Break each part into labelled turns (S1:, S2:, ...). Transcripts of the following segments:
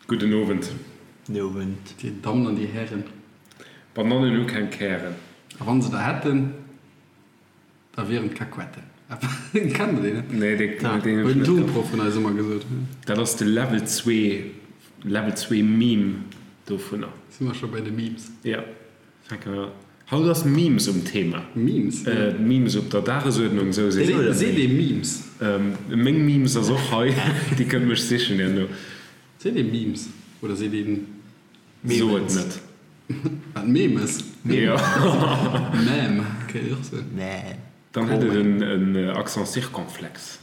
S1: Gudden Owend.
S2: Den Owend.
S3: Dir Dammen an dir Hären.
S1: Banannen hu keng Kären.
S3: A wann se der hätten, da wieren et Kakuetten. Kennt der deen net?
S1: Nee, deen hu ech net.
S3: Huet den Turnproff vun eis ëmmer gesot.
S1: Dat ass de Level 2, Level 2 Meme dovunner.
S3: Si mer scho bei de Memes?
S1: Jo. Fänke mer. Haut ass Memes um Thema.
S3: Memes?
S1: Memes op der Dagesuerdnung, sou seet
S3: een. Seet ee Memes?
S1: Meng Memes ass och hei, déi kënnt mech sichen herno.
S3: Seet ee Memes oder seet een
S1: Memes? So et net.
S3: Wat, Memes?
S1: Jo.
S3: Meme kéint een och soen.
S2: Meme.
S1: Dann hätt et en Accent circonflexe.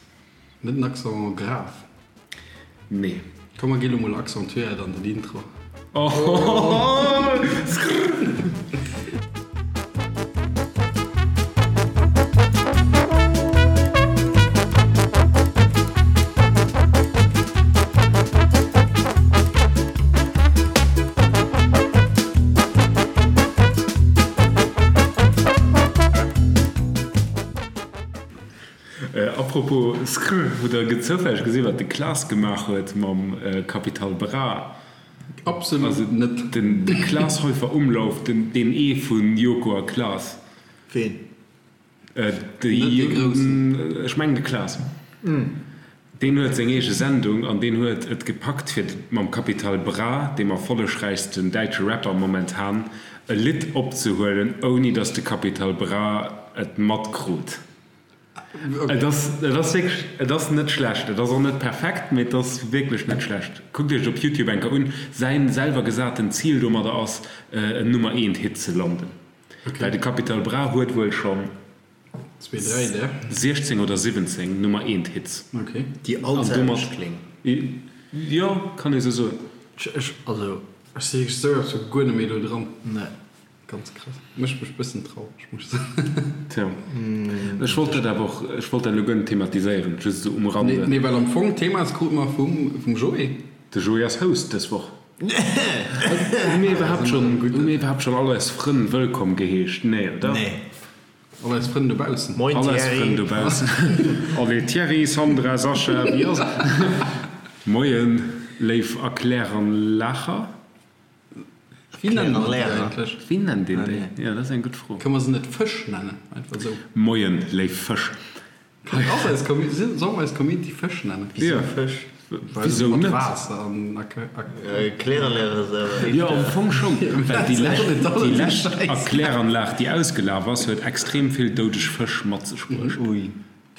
S3: Net en Accent grave?
S1: Nee.
S3: Komm mer gi lo mol accentuéiert an den Intro.
S1: Apropos Skr, hutt der zoufälleg gesinn, wat de Klaas gemaach huet mam Capital Bra?
S3: Absolut net.
S1: Den Klaas Heufer Umlauf, den deen ee vun Joko a Klaas.
S2: Ween?
S1: Net dee Groussen? Ech mengen de Klaas. Deen huet seng eege Sendung an deen huet et gepackt fir mam Capital Bra, deem erfollegräichsten däitsche Rapper momentan, e Lidd opzehuelen ouni datt de Capital Bra et matkrut. Et ass, et ass wierklech, et ass net schlecht. Et ass och net perfekt, mee et ass wierklech net schlecht. Kuckt iech et op Youtube eng Kéier un. Säin selwer gesaten Zil domadder ass, en Nummer eent Hit ze landen. Well de Capital Bra huet wuel schonn 16 oder 17 Nummer eent Hits.
S2: Déi all d'selwecht kléngen.
S1: Jo, kann ee sou soen.
S2: Ech, also.
S3: Ech si wierklech esou absolut guer net méi do dran.
S2: Nee.
S3: Ganz krass. Mécht mech bëssen traureg, muss ech soen.
S1: Tja, ech wollt dat awer och, ech wollt dat elo guer net thematiséieren, just esou um Rande.
S3: Nee, well am Fong, d'Thema ass krute mer vum, vum Joé.
S1: De Joé ass Host dës Woch. Hu mir iwwerhaapt schonn, hu mir iwwerhaapt schonn all eis Frënn wëllkomm geheescht? Nee, oder?
S2: Nee.
S3: All eis Frënn dobaussen.
S2: Moin
S1: All eis
S2: Thierry.
S1: Frënn dobaussen. Allez Thierry, Sandra, Sascha, wéi ass et? Moien, léif Erkläranlacher.
S3: Wéi nennen mer déi eigentlech?
S1: Wéi nennt een déi? Jo, dat ass eng gutt Fro.
S3: Kënne mer se net Fësch nennen? Einfach esou.
S1: Moien, léif Fësch.
S3: Ass eis Community, solle mer eis Community Fësch nennen?
S1: Wisou
S2: Fësch?
S1: Wisou net?
S3: Waasser an
S2: Erkläranlag ass awer éischter.
S1: Jo, am Fong schonn, well déi lescht, déi lescht Erkläranlag, déi ausgelaf ass, huet extrem vill doudeg Fësch mat sech bruecht.
S2: Ui.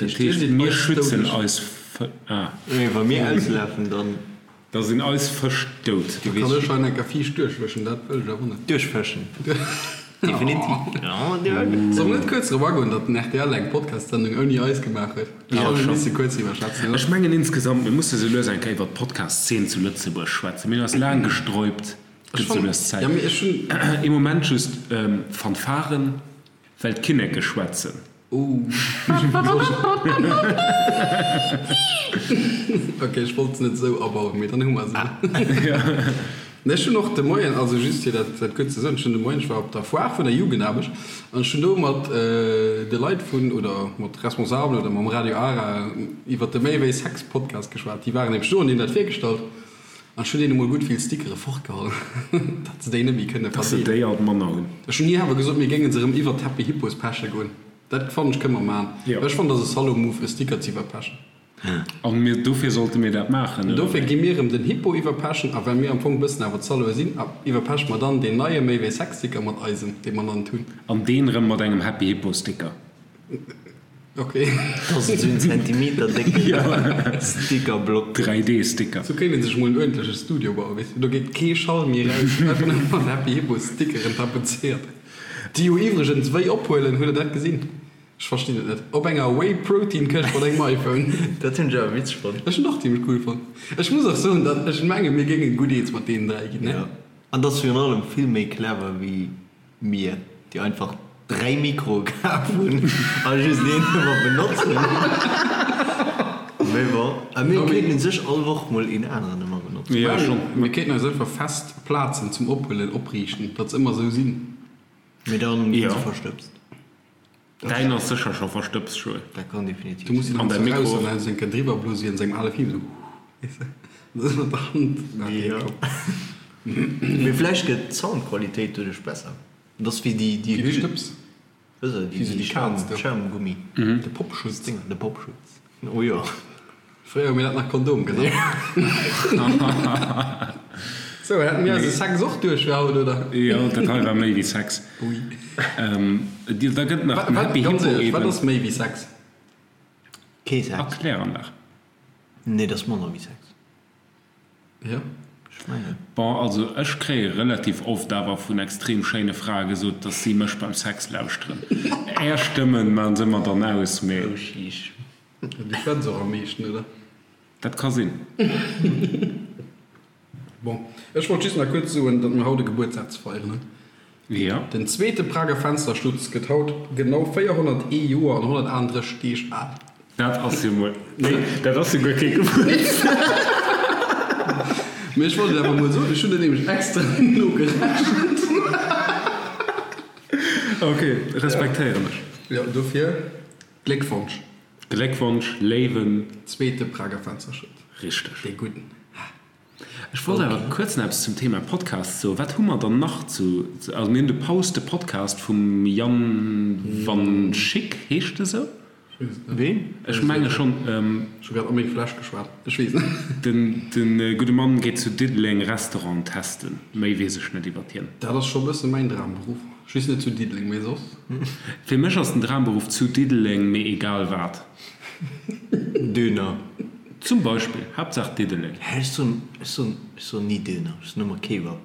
S1: Dat heescht, mir schützen eis Fë, ah.
S2: Wa mir auslafen, dann.
S1: Da sinn eis Fësch dout.
S3: Da kann ech hei enker fiicht duerchwëschen, dat wëll ech awer net.
S2: Duerchfëschen, definitiv.
S3: Solle mer net kuerz drop agoen, datt den rtl eng Podcast-Sendung ouni eis gemaach huet? Ech fannen, mir misse kuerz driwwer schwätzen, oder?
S1: Ech mengen insgesamt, mir musse sou lues eng Kéier iwwer d'Podcast-Zeen zu Lëtzebuerg schwätzen. Mir hunn eis laang gesträubt, et gëtt sou lues Zäit. Ee Moment just, Fanfaren, well d'Kinneke schwätzen.
S3: Ok, ech wollt se net esou abauen, mee dann hu mer se. Nee, ech hunn och de Moien, also just fir dat dat kuerz ze soen, ech hunn de Moien, ech war op der Foire vun der Jugendaarbecht an ech hunn do mat de Leit vun, oder mat Responsabelen oder mam Radio Ara iwwert de Méi wéi Sex Podcast geschwat. Déi waren nämlech do an déi hunn dat virgestallt an ech hunn deene mol gutt vill Stickere fortgeholl, datt se déi net méi kënne
S1: Datt se déi
S3: verdeelen.
S1: alt manner hunn.
S3: Ech hunn ni awer gesot, mir géinge se erëm iwwert d'Happy Hippos peche goen. Dat fannen ech kënne mer maan.
S1: Jo.
S3: Ech fannen dat ass e Salaud-Move e Sticker ze iwwerpechen.
S1: An mir, dofir sollte mir dat maachen, oder
S3: Dofir
S1: wéi?
S3: gi mir erëm den Hippo iwwerpechen a well mir am Fong bëssen awer d'Saloe sinn, iwwerpeche mer dann deen neie Méi wéi Sex Sticker mat eisem, dee mer nach net hunn.
S1: An deen erëm mat engem Happy Hippo Sticker.
S3: Ok.
S2: Dat ass esou en Zentimeter décke Stickerblock.
S1: 3D Sticker.
S3: Sou kéint een sech mol en uerdentleche Studio bauen, weess de, do geet kee Schall méi eraus, einfach nëmme mat Happy Hippo Stickeren tapezéiert. Déi jo iwwregens wéi ophuelen, hutt der dat gesinn? Ech verstinn et net. Op enger Whey Protein Këscht mat engem iPhone.
S2: Dat hunn ech awer witzeg fonnt.
S3: Ech hunn och zimmlech cool fonnt. Ech muss och soen, datt ech menge mir géinge gutt eens mat deenen 3 ginn, ne?
S2: Jo, an dat ass virun allem vill méi clever wéi mir, déi einfach 3 Mikroe kaf hunn a just een ëmmer benotzen. Mee bon, a mir kéinten u sech all Woch mol een aneren ëmmer benotzen.
S1: Jo, schonn.
S3: Mir kéinten eis einfach fest Plazen zum Ophuelen opriichten, datt se ëmmer esou sinn.
S2: Mee dann ginn se verstëbst.
S1: Däin ass sécher scho verstëbst, Joé.
S2: Dat kann definitiv
S3: Du muss
S2: sinn.
S3: se
S1: An
S3: dann
S1: däi
S3: eraus
S1: Mikro
S3: an
S1: och.
S3: dann enke driwwer blose wéi an sengem ale Film, esou, weess de. Dat ass mat der Hand.
S2: Jo. Mee vläicht gëtt d'Soundqualitéit doduerch besser. Dat ass wéi déi, déi.
S3: Wéi déi Stëbs.
S2: Wéi se, déi, déi Schaum, Schaumgummi.
S3: De Popschutz.
S2: De Popschutz. Oh jo.
S3: Fréier hu mir dat nach Kondom genannt. Sou, hätte mir eise Sex och duerch fir haut, oder?
S1: Jo, dat hei war méi wéi Sex.
S3: Ui.
S1: Da gëtt nach den Happy
S3: Hippo
S1: eben.
S3: Ganz éierlech, wat ass méi wéi Sex?
S2: Kee Sex.
S1: Erklär an nach.
S2: Nee, dat ass manner wéi Sex.
S3: Jo.
S2: Ech mengen.
S1: Bon, also ech kréie relativ oft awer vun extrem schéine Frae gesot, dass si mech beim Sex lauschteren. Är Stëmmen maachen se mer dann aus, mee.
S2: Oh sheesh.
S3: Du schwätz och am meeschten, oder?
S1: Dat ka sinn.
S3: Bon, ech wollt just nach kuerz soen, datt mir haut e Gebuertsdag ze feieren hunn.
S1: Jo.
S3: Den zweete Prager Fensterschutz gëtt haut genau 401 Joer an 138 Deeg al.
S1: Dat ass jo mol, nee, dat ass jo guer kee Gebuertsdag.
S3: Mee ech wollt et awer mol soen, ech hunn dat nämlech extra nogerechent.
S1: Ok, respektéieren ech.
S3: Jo, dofir Gléckwonsch.
S1: Gléckwonsch, léiwen.
S3: Zweete Prager Fensterschutz.
S1: Richteg.
S3: Dee gudden.
S1: Ech wollt awer kuerz nach eppes zum Thema Podcast soen. Wat hu mer dann nach zu, also mir hunn de Paus, de Podcast vum Yann Van Schick, heescht e sou?
S2: Ween?
S1: Ech menge schonn.
S3: Ech hu grad a meng Fläsch geschwat, ech weess net.
S1: Den gudde Mann geet zu Diddeleng Restaurant testen. Méi weess ech net iwwert hien.
S3: Dat ass scho bësse mäin Dramberuff. Just net zu Diddeleng, mee soss.
S1: Fir mech ass den Dramberuff zu Diddeleng, mee egal wat.
S2: Döner.
S1: Zum Beispill. Haaptsaach Diddeleng.
S2: Hä, ech soen, ech soen, ech soen ni Döner, ech soen ëmmer Kebab.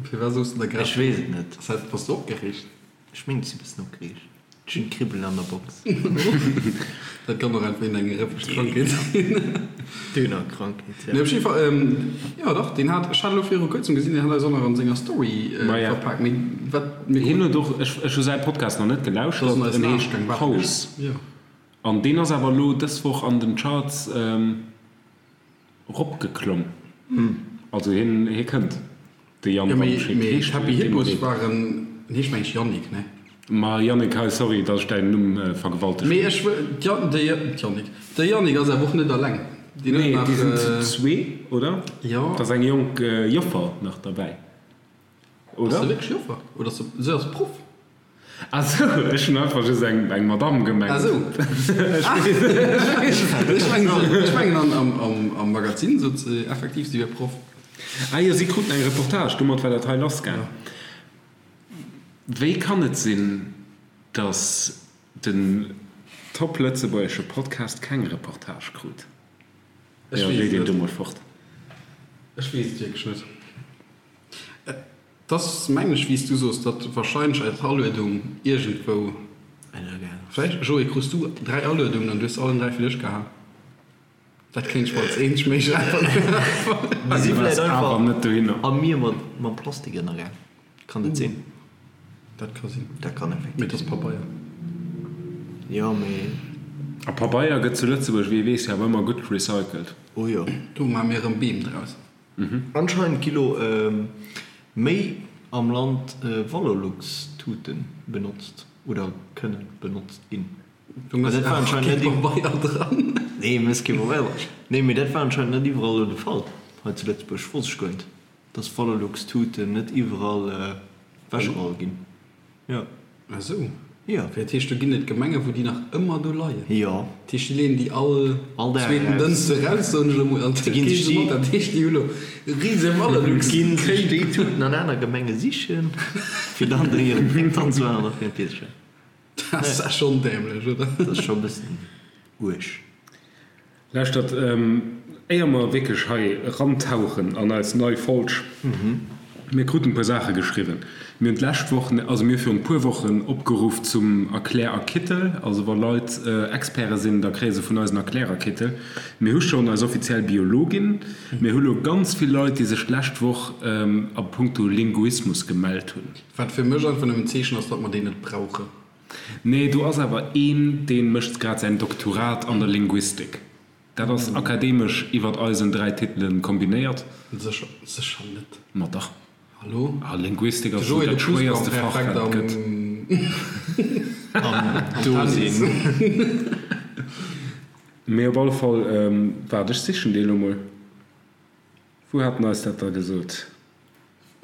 S3: Firwat soos de da grad?
S2: Ech weess et net.
S3: Ass dat, bass de opgereegt?
S2: Ech mengen, ech si bëssen opgereegt. Ech hunn Kribbelen an der Box.
S3: Dat kann och einfach eng rëffeg Krankheet sinn.
S2: Dönerkrankheet, ja.
S3: Nee, op jidde Fall, jo dach, deen hat, ech hat elo viru kuerzem gesinn, deen hat eis och nach an senger Story verpaakt. Mee wat
S1: mir. Hien huet och, ech, ech hu säi Podcast nach net gelauschtert, en heescht Paus. An deen ass awer elo dës Woch an den Charts. Ropgeklomm. Also hien hie kënnt, de Yann
S3: Jo, mee,
S1: Wandschik.
S3: mee
S1: Heescht
S3: d'Happy
S1: dee
S3: Hippos
S1: mat ee?
S3: waren, en heescht meng ech Yannick, ne?
S1: Ma Yannick, hei, sorry, datt ech däin Numm vergewaltegt
S3: Mee
S1: hunn.
S3: ech wëll, d'Yan, de, d'Yannick, de Yannick ass awer och net alleng. Deen huet
S1: Nee,
S3: nach,
S1: déi sinn zu zwee, oder?
S3: Jo.
S1: Et ass eng jonk Joffer nach derbäi, oder?
S3: Ass se wierklech Joffer? Oder ass se, se ass Proff?
S1: Ah sou, ech hunn einfach just eng eng Madame gemengt.
S3: Ah sou. Ech mengen, ech mengen an am am Magazin sot se effektiv, si wier Proff.
S1: Ah jo, si kruten eng Reportage, domat war dat hei lassgaang. Wéi kann et sinn, datt den top lëtzebuergesche Podcast keng Reportage krut?
S3: Ech
S1: Jo,
S3: weess
S1: léi
S3: et
S1: deen do
S3: net.
S1: mol fort.
S3: Ech weess et wierklech net. Et ass, mengen ech, wéi s du soos, datt wahrscheinlech eis Aluedung iergendwou, vläicht, Joé, krus du 3 Aluedungen an du hues se allen 3 fir dech gehat? Dat kéint ech mer als eenzeg méiglech Äntwert virstellen.
S2: Déi si
S1: Du
S2: vläicht
S1: waars awer
S2: einfach
S1: net dohinner.
S2: a mir mat mam Plastik ënnergaang. Kann dat sinn?
S3: Dat ka sinn.
S2: Dat kann effektiv
S3: Mee et ass
S2: sinn.
S3: Pabeier.
S2: Jo, mee.
S1: A Pabeier gëtt zu Lëtzebuerg, wéi ee weess, jo awer ëmmer gutt recycelt.
S2: Oh jo.
S3: Do maache mir erëm Beem draus.
S2: Anscheinend gi lo méi am Land Valorlux-Tuten benotzt oder kënnen benotzt ginn.
S3: Du mëss
S2: Dat war
S3: awer
S2: anscheinend
S3: kee
S2: net
S3: Pabeier dran.
S2: Nee, mëss kee Pabeier dran. Nee, mee dat war anscheinend net iwwerall elo de Fall hei zu Lëtzebuerg. Wosst ech guer net, dass Valorlux-Tuten net iwwerall ewechgeholl ginn. Jo.
S3: Ah sou.
S2: Jo.
S3: Fir dat heescht, do ginn et Gemengen, wou déi nach ëmmer do leien.
S2: Jo.
S3: Dat heescht, déi leeën déi all
S2: All Dag
S3: zweeten
S2: eraus.
S3: Dënschde raus, soen ech elo mol, an
S2: Déi ginn sech déi.
S3: Dat heescht, déi hu lo rise Valorlux.
S2: Ginn sech déi Tuten an aner Gemenge sichen, fir dann do hiren Dreck dran ze maachen a fir en Pilzchen.
S3: Dat ass schonn dämlech, oder?
S2: Dat ass scho e bëssen uerg.
S1: Lauschtert, éier mer wierklech hei erantauchen an eis nei Folg, mir kruten e puer Saache geschriwwen. Mir hunn d'lescht Woch, also mir hu virun e puer Wochen opgeruff zum Erklärerkittel. Also wa Leit Experte sinn, da kréie se vun eis en Erklärerkittel. Mir hu schonn eis offiziell Biologin. Mir hu lo ganz vill Leit, déi sech d'lescht Woch a puncto Linguismus gemellt hunn.
S3: Wat fir mech einfach nëmmen en Zeechen ass, datt mer deen net brauchen.
S1: Nee, do ass awer een, dee mécht grad säin Doktorat an der Linguistik. Dat ass akademesch iwwert eisen 3 Titelen kombinéiert.
S3: Sécher, sécher net.
S1: Ma dach.
S3: Hallo?
S1: Ah, Linguistik
S3: De
S1: ass esou
S3: Joé, de
S1: dat schwéierste Fach,
S3: Plusquamperfekt
S1: wat et gëtt.
S3: am,
S2: Am Dosinn.
S1: Mee op alle Fall, waart, ech sichen dee lo mol. Wou hat en eis dat da gesot?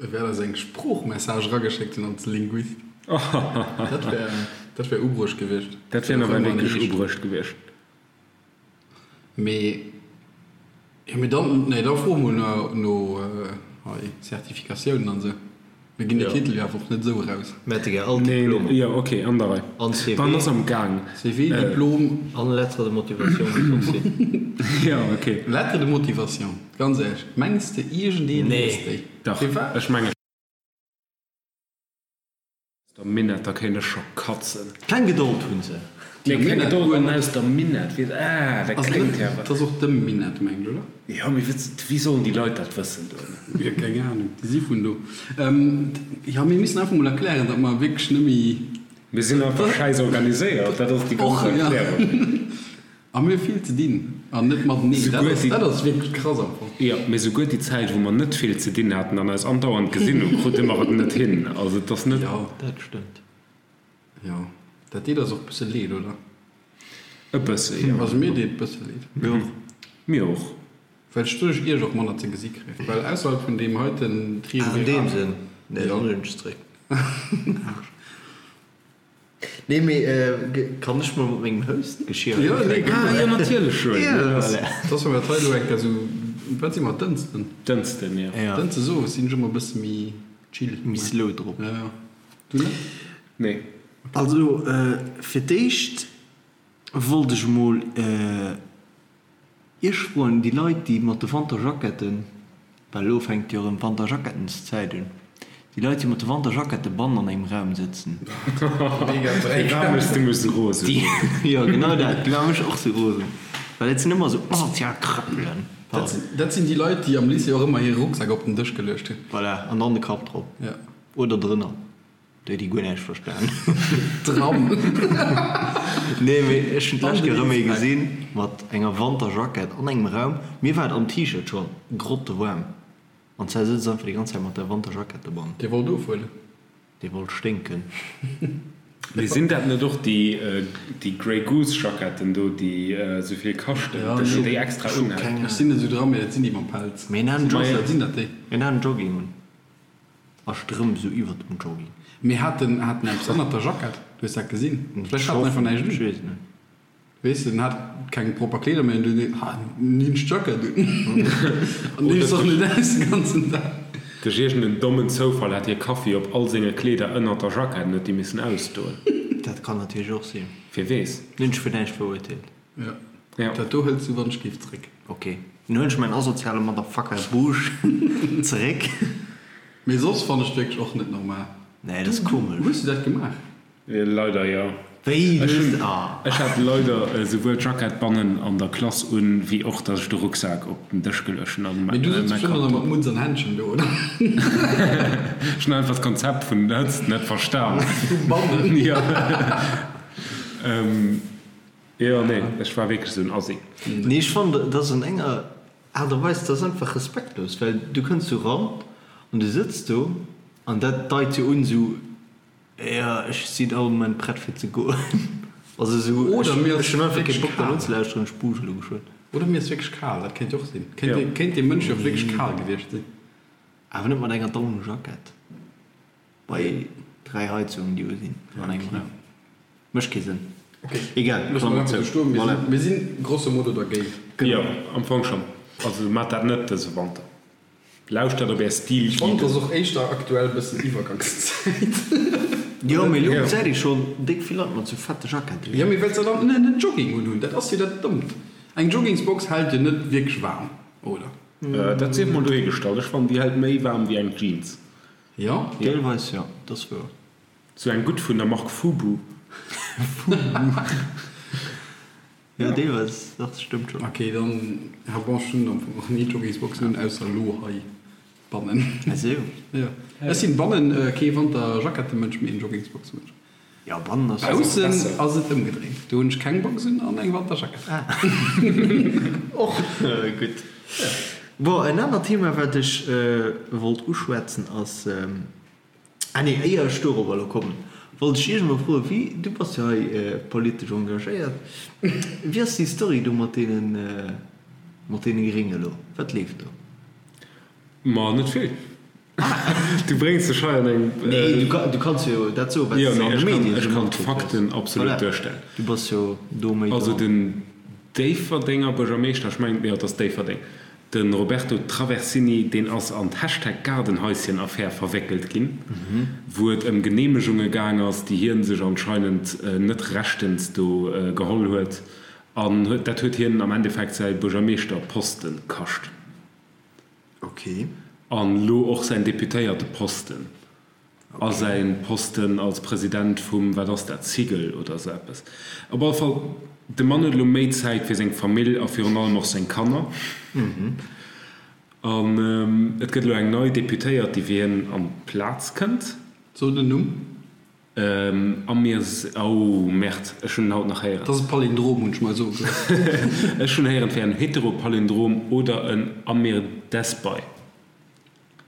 S3: E wäert eis eng Sproochmessage erageschéckt hunn als Linguist. Dat wär, dat wär ubruecht gewiescht.
S1: Dat wär nawell wierklech ubruecht gewiescht.
S3: Mee, jo, mee dann, nee, da froe mol no, no hei Zertifikatiounen an esou. Mir ginn de Titel jo awer och net esou eraus.
S2: Mir hätte gär all Diplomer.
S1: Jo, ok, an der Rei.
S2: An CV.
S1: Dann ass am Gaang.
S3: CV, Diplom.
S2: An Lettre de motivation muss och sinn.
S1: Jo, ok.
S3: Lettre de motivation, ganz éierlech, mengs de iergendeen liest déi?
S1: Dach, ech mengen. Aus der Minett, da kéint ech scho katzen.
S2: Keng Gedold hunn se.
S1: Nee, keng Gedold an aus der Minett, weess, ah, dat kléngt
S3: ja. Dat ass och dem Minett, mengt, oder?
S1: Jo, mee wéi sollen déi Leit dat wëssen do?
S3: Jo, keng Ahnung, déi si vun do. Jo, mir missen einfach mol erklären, datt mer wierklech net méi.
S1: Mir sinn einfach schäiss organiséiert, dat ass déi ganz Erklärung.
S3: A mir hu vill ze dinn an net mateneen. Dat ass, dat ass wierklech krass am Fong.
S1: Jo, mee souguer déi Zäit, wou mer net vill ze dinn haten an eis andauernd gesinn hunn, krute mer et net hin. Also et ass net.
S3: Jo.
S2: Dat stëmmt.
S3: Jo, dat deet eis och e bësse leed, oder?
S1: E bësse, jo.
S3: Also mir deet et bësse leed.
S2: Mir och.
S1: Mir och.
S3: Well ech doduerch iech och manner ze gesi kréien. Well ausserhalb vun deem heiten
S2: Triumvirat. Ah, an deem Sënn. Nee, dann huelen ech zeréck. Nee mee kann ech mol mat mengem Host-Geschirr
S3: Jo, nee,
S1: Ah jo, natierlech, Joël.
S3: Ja, voilà. Dass mer dat hei elo eng Kéier esou, wat si mer, Dënsten?
S1: Dënsten, jo.
S2: Ja.
S3: Dënschdes owes sinn ech ëmmer e bësse méi chill.
S2: Méi slow drop.
S3: Ja, ja. Du net?
S1: Nee.
S2: Also fir d'éischt wollt ech mol Iech froen, déi Leit, déi mat de Wanterjacketten, well elo fänkt jo erëm d'Wanterjackettenzäit un, déi Leit, déi mat de Wanterjackette bannen an engem Raum sëtzen.
S1: Déi maache mech du mech sou rosen.
S2: Jo, genau dat, déi maache mech och sou rosen, well dat sinn ëmmer sou asozial Krëppelen.
S3: Dat sinn déi Leit, déi am Lycée och ëmmer hire Rucksak op den Dësch geluecht hunn.
S2: Voilà, an dann de Kapp drop.
S3: Ja.
S2: Oder drënner. Déi déi guer näischt verstan.
S3: Dran.
S2: Nee mee ech hunn d'lescht Kéier erëm ee gesinn mat enger Wanterjackett an engem Raum. Mir war et am T-Shirt scho grottewaarm an zwar sëtzt einfach déi ganz Zäit mat der Wanterjackett dobannen.
S3: Dee wollt ofhuelen.
S2: Dee wollt sténken.
S1: Mee sinn dat net och déi déi Grey Goose Jacketten do déi esou vill kaschten, dass een déi extra unhält?
S3: Ech sinn net esou dran, mee dat sinn déi mam Pelz.
S2: Mee en hat en
S3: Sinn dat déi?
S2: En hat en Jogging un. A Strëmp sou iwwert dem Jogging.
S3: Mee hat en hat en eppes ënnert der Jackett? Du hues dat gesinn? Vläicht hat en einfach näischt un.
S2: Ech weess et net.
S3: Weess de, en hat keng propper Kleeder méi an du hues ha hunn ech d'Jackett un an dees och net aus de ganzen Dag.
S1: Duerch iergend en dommen Zoufall hat hie Kaffi op all senge Kleeder ënnert der Jackett an huet déi missen ausdoen.
S2: Dat kann natierlech och sinn.
S1: Wie weess.
S2: Hunn ech fir näischt verurteelt.
S3: Jo, dat do hëls du wann ech géif zréck.
S2: Ok, dann huelen ech mäin asoziale Motherfucker Busch zeréck.
S3: Mee soss fannen ech wierklech och net normal.
S2: Nee, dat ass komesch.
S3: Hues du dat gemaach?
S1: Leider jo.
S2: Wéi, du hues. Ah.
S1: Ech hat leider esouwuel d'Jackett bannen an der Klass un, wéi och dass ech de Rucksak op den Dësch geluecht hunn an
S3: Mee du sëtz bestimmt och nach mat Mutz an Händschen do, oder?
S1: Ech hunn einfach d'Konzept vun Hëtzt net verstan.
S3: Vu bannen?
S1: Jo. Jo, nee, ech war wierklech esou en Assi.
S2: Nee, ech fannen, dat ass an enger Aart a Weis, dat ass einfach respektlos, well du kënns do ran an du sëtz do an dat deit jo un esou, jo, ech sinn all Moment prett fir ze goen. Also esou,
S3: Oder mir
S2: ech
S3: ass
S2: hunn einfach kee
S3: wierklech
S2: Bock dat
S3: kal.
S2: unzelauschteren, ech buuscht elo geschwënn.
S3: Oder mir ass wierklech kal, dat kéint jo och sinn. Kéint, kéint dee Mënsch jo och wierklech kal gewiescht sinn.
S2: Awer net mat enger Daunenjackett bei 3 Heizungen, déi u sinn an engem Raum. Mécht kee Sënn. Egal,
S3: Loosse mer einfach sou stoen. Mir sinn, mir sinn grosso modo dergéint.
S1: Jo, am Fong schonn. Also maacht dat net dëse Wanter. Lauschtert op är
S3: Stil
S1: Ech fannen,
S3: et ass och éischter aktuell bëssen Iwwergangszäit.
S2: Jo, mee elo gesäit ee schonn déck vill Leit mat sou fette Jacketten.
S3: Jo, mee well se dann en Jogging unhunn, dat ass jo dat Dommt. Eng Joggingsbox hält jo net wierklech waarm, oder?
S1: Dat sief mol dohigestallt. Ech fannen, déi hält méi waarm wéi eng Jeans.
S3: Jo?
S2: Deelweis jo, dat ass wouer.
S1: Sou eng gutt vun der Mark Fubu.
S2: Fubu. Jo, deelweis, dach, dat stëmmt schonn.
S3: Ok, dann, ja bon, ech hunn am Fong och ni Joggingsboxen un, ausser elo hei bannen.
S2: Ah sou.
S3: Jo, ech sinn bannen kee Wanterjackettemënsch, mee en Joggingsboxemënsch.
S2: Jo, bannen ass jo.
S3: Baussen ass et ëmgedréint, do hunn ech keng Box un an eng Wanterjackett.
S2: Ah, och gutt. Bon, en anert Thema, wat ech wollt uschwätzen, ass. Ah nee, éier ech dorobber elo kommen, wollt ech Iech emol froen, wéi, du bass jo hei politesch engagéiert, wéi ass déi Story do mat deenen, mat deene Grénge elo? Wat leeft do?
S1: Ma net vill. Du bréngs dech hei an eng.
S2: Nee, du kanns jo dat soen, wat s de an de Medien
S1: esou matkritt hues. Ech kann d'Fakten absolut duerstellen.
S2: Du bass jo do méi
S1: dran. Also den Déifferdenger Buergermeeschter, ech mengen, jo, et ass Déifferdeng, de Roberto Traversini, deen ass an d'Hashtag Gaardenhaischen-Affär verwéckelt ginn, wou et ëm Geneemegunge gaang ass, déi hie sech anscheinend net rechtens do geholl huet. An dat huet hien am Endeffekt säi Buergermeeschterposte kascht.
S2: Ok.
S1: An elo och säin Deputéierteposten a säi Posten als President vum, wat ass dat, Cigl oder esou eppes. Op alle Fall, de Mann huet elo méi Zäit fir seng Famill a virun allem och seng Kanner. An et gëtt elo eng nei Deputéiert, déi fir hien an d'Plaz kënnt.
S3: So den Numm.
S1: Amir, oh Merde, ech hunn en haut nach héieren.
S3: Dat ass e Palindrom, hunn ech mer soe gelooss.
S1: Ech hunn héieren, et wär en Heteropalindrom oder en Amir Desbai.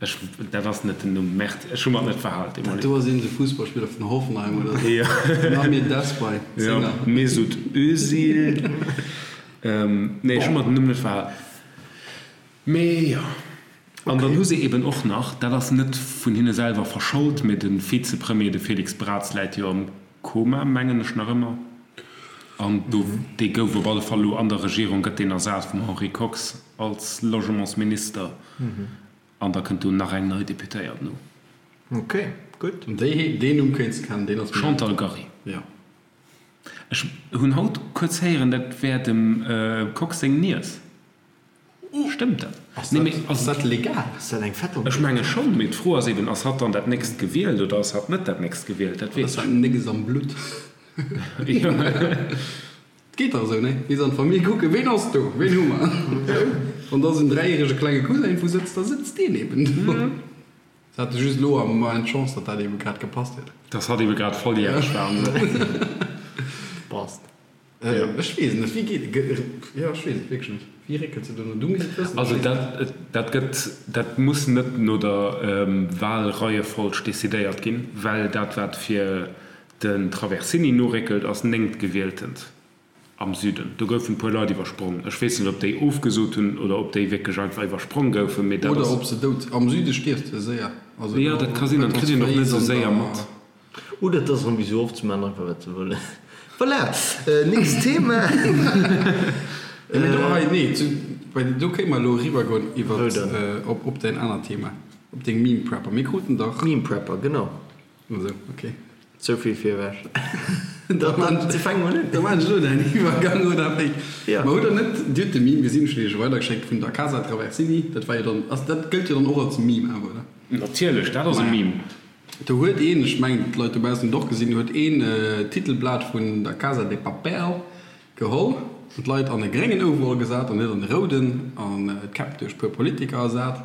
S1: Ech, dat ass net den Numm, Merde, ech hu mer et net verhal,
S3: Dat démolé. do ass iergend e Fussballspiller vun Hoffenheim oder sou. Jo. Den Amir Desbai,
S1: Jo, Zénger. Mesut Özil. Nee, ech hu mer den Numm net verhal. Mee jo. An dann hu se eben och nach, dat ass net vun hinne selwer verschold, mee de Vizepremier, de Félix Braz, läit jo am Koma, mengen ech nach ëmmer, an do, dee gouf op alle Fall elo an der Regierung, gëtt deen ersat vum Henri Kox als Logementsminister, an da kënnt do nach eng nei Deputéiert no.
S2: Ok, gutt.
S3: An déi, deen Numm kéints de kennen, deen ass
S1: mir. Chantal Gary.
S3: Jo.
S1: Ech hunn haut kuerz héieren, dat wär dem Kox seng Niess. Stëmmt dat?
S3: Ass dat, ass dat legal?
S2: Ass dat eng
S1: Fettung? Ech menge schonn, mee d'Fro ass eben, ass hatt dann dat nächst gewielt oder ass hatt net dat nächst gewielt? Dat weess
S3: ech. Ass dat nécks am Blutt? Jo. Et geet dach esou, nee? Bis an d'Famill kucken, ween ass do? Ween hu mer? Wann da esou en dräijärege klenge Cousin iergendwou sëtzt, da sëtzt deen eben do. Se hate just elo am Moment d'Chance, datt dat ebe grad gepasst huet.
S1: Dass hatt ebe grad volljäreg war an esou.
S2: Passt.
S3: Ech weess et net. Wéi geet et? Jo, ech weess et wierklech net. Wéi réckelt se do no? Du misst et wëssen.
S1: Also dat, dat gëtt, dat muss net no der Wahlreiefolg decidéiert ginn, well dat wat fir den Traversini noréckelt ass néngtgewieltent am Süden. Do goufen e puer Leit iwwersprong. Ech weess net, ob déi ofgesot hunn oder ob déi wierklech einfach iwwersprong goufen, mee dat
S3: ass. Oder ob se dout. Am Süde stierfs de séier.
S1: Also Jo, dat ka sinn. Dat kritt een och net esou séier mat.
S2: Oder et ass erëm wéi sou oft, se maachen einfach wat se wëllen. Voilà, nächst Thema.
S3: Mee do hei, nee, zu, bei, do kéinte mer elo eriwwergoen iwwer, op, op däin anert Thema, op deng Meme Prepper. Mir kruten dach.
S2: Meme Prepper, genau.
S3: Esou, ok.
S2: Souvill virewech. Da fänke mer un.
S3: Da maachen ech elo däin Iwwergang, oder wéi? Jo. Mer hutt der net, Dir hutt de Meme gesinn, ech hunn Iech e weidergeschéckt, vun der Casa Traversini. Dat war jo dann, ass, dat gëllt jo dann och als Meme awer, oder?
S1: Natierlech, dat ass e Meme.
S3: Do huet een, ech mengen d'Leit dobaussen hunn et och gesinn, huet een d'Titelblat vun der Casa de Papel geholl an d'Leit an e gréngen Overall gesat an net an e rouden an d'Käpp duerch puer Politiker ersat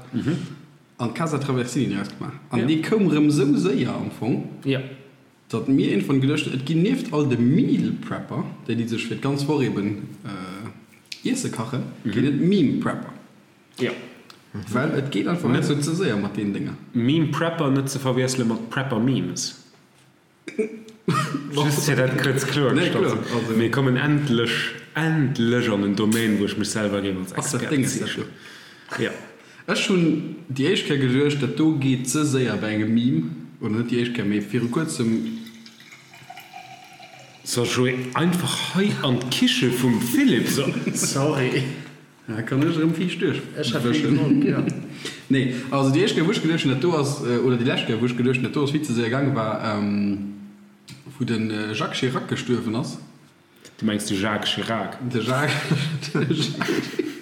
S3: an d'Casa Traversini draus gemaach. An dee koum rëm esou séier am Fong, datt mir iergendwann geduecht hunn, et ginn nieft all de Meal Prepper, déi déi sech fir d'ganz Woch eben Iesse kachen, ginn et Meme Prepper.
S1: Jo.
S3: Well et geet einfach net sou ze séier mat deenen Dénger.
S1: Meme Prepper net ze verwiessele mat Prepper Memes. Just fir dat kuerz kloergestallt ze hunn. Mir kommen endlech, endlech an en Domaine wou ech mech selwer géif als Expert bezeechnen.
S3: Jo. Ech hunn déi éischt Kéier geduecht, dat do geet ze séier bei engem Meme, oder net déi éischt Kéier, mee viru kuerzem.
S1: So Joé, einfach hei an d'Kiche vum Philippe.
S2: Sorry.
S3: Da kann ech erëm viischt duerch wëschen. Nee, also déi éischt Kéier wou ech geduecht hunn dat do ass, oder déi lescht Kéier wou ech geduecht hunn dat do ass vill ze séier gaangen, war wou de Jacques Chirac gestuerwen ass.
S1: Du mengs de Jacques Chirac?
S3: De Jacques, de Jacques Chirac.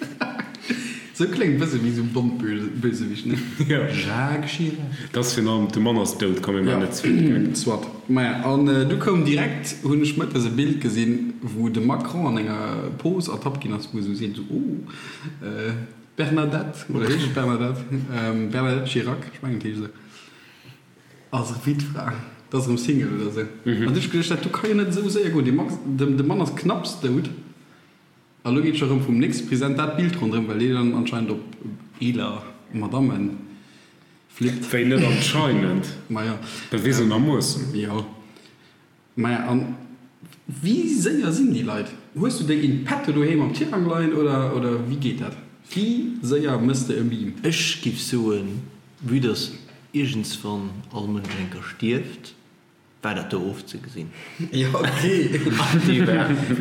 S3: Sou kléngt bësse wéi sou Bond-Bösewicht, ne?
S1: Jo.
S3: Jacques Chirac.
S1: Dat ass virun allem, de Mann ass dout, komm mir maachen net ze vill
S3: Geck. Soit. Maja, an du koum direkt, hunn ech mëttes e Bild gesinn, wou de Macron an enger Pose ertappt ginn ass, wou e sou seet, sou, oh, Bernadette, oder heescht et Bernadette? Bernadette Chirac, ech mengen et heescht esou, ass Wittfra, dat ass erëm Single oder esou. An du hu ech geduecht, dat do ka jo net esou séier goen, dee Max, de Mann ass knapps dout, a lo geet scho erëm vum nächste President dat Bild ronderëm, well dee dann anscheinend op eeler Madammen
S1: Flippt. Wéi net anscheinend?
S3: Maja.
S1: Bewisenermoossen.
S3: Jo. Maja, an wéi séier sinn déi Leit? Hues du déi in petto doheem am Tirang leien oder, oder wéi geet dat? Wéi séier mëss de e Meme?
S2: Ech giff soen, vue dass iergendswann all Mënsch eng Kéier stierft, war dat do ofzegesinn.
S3: Jo, ok.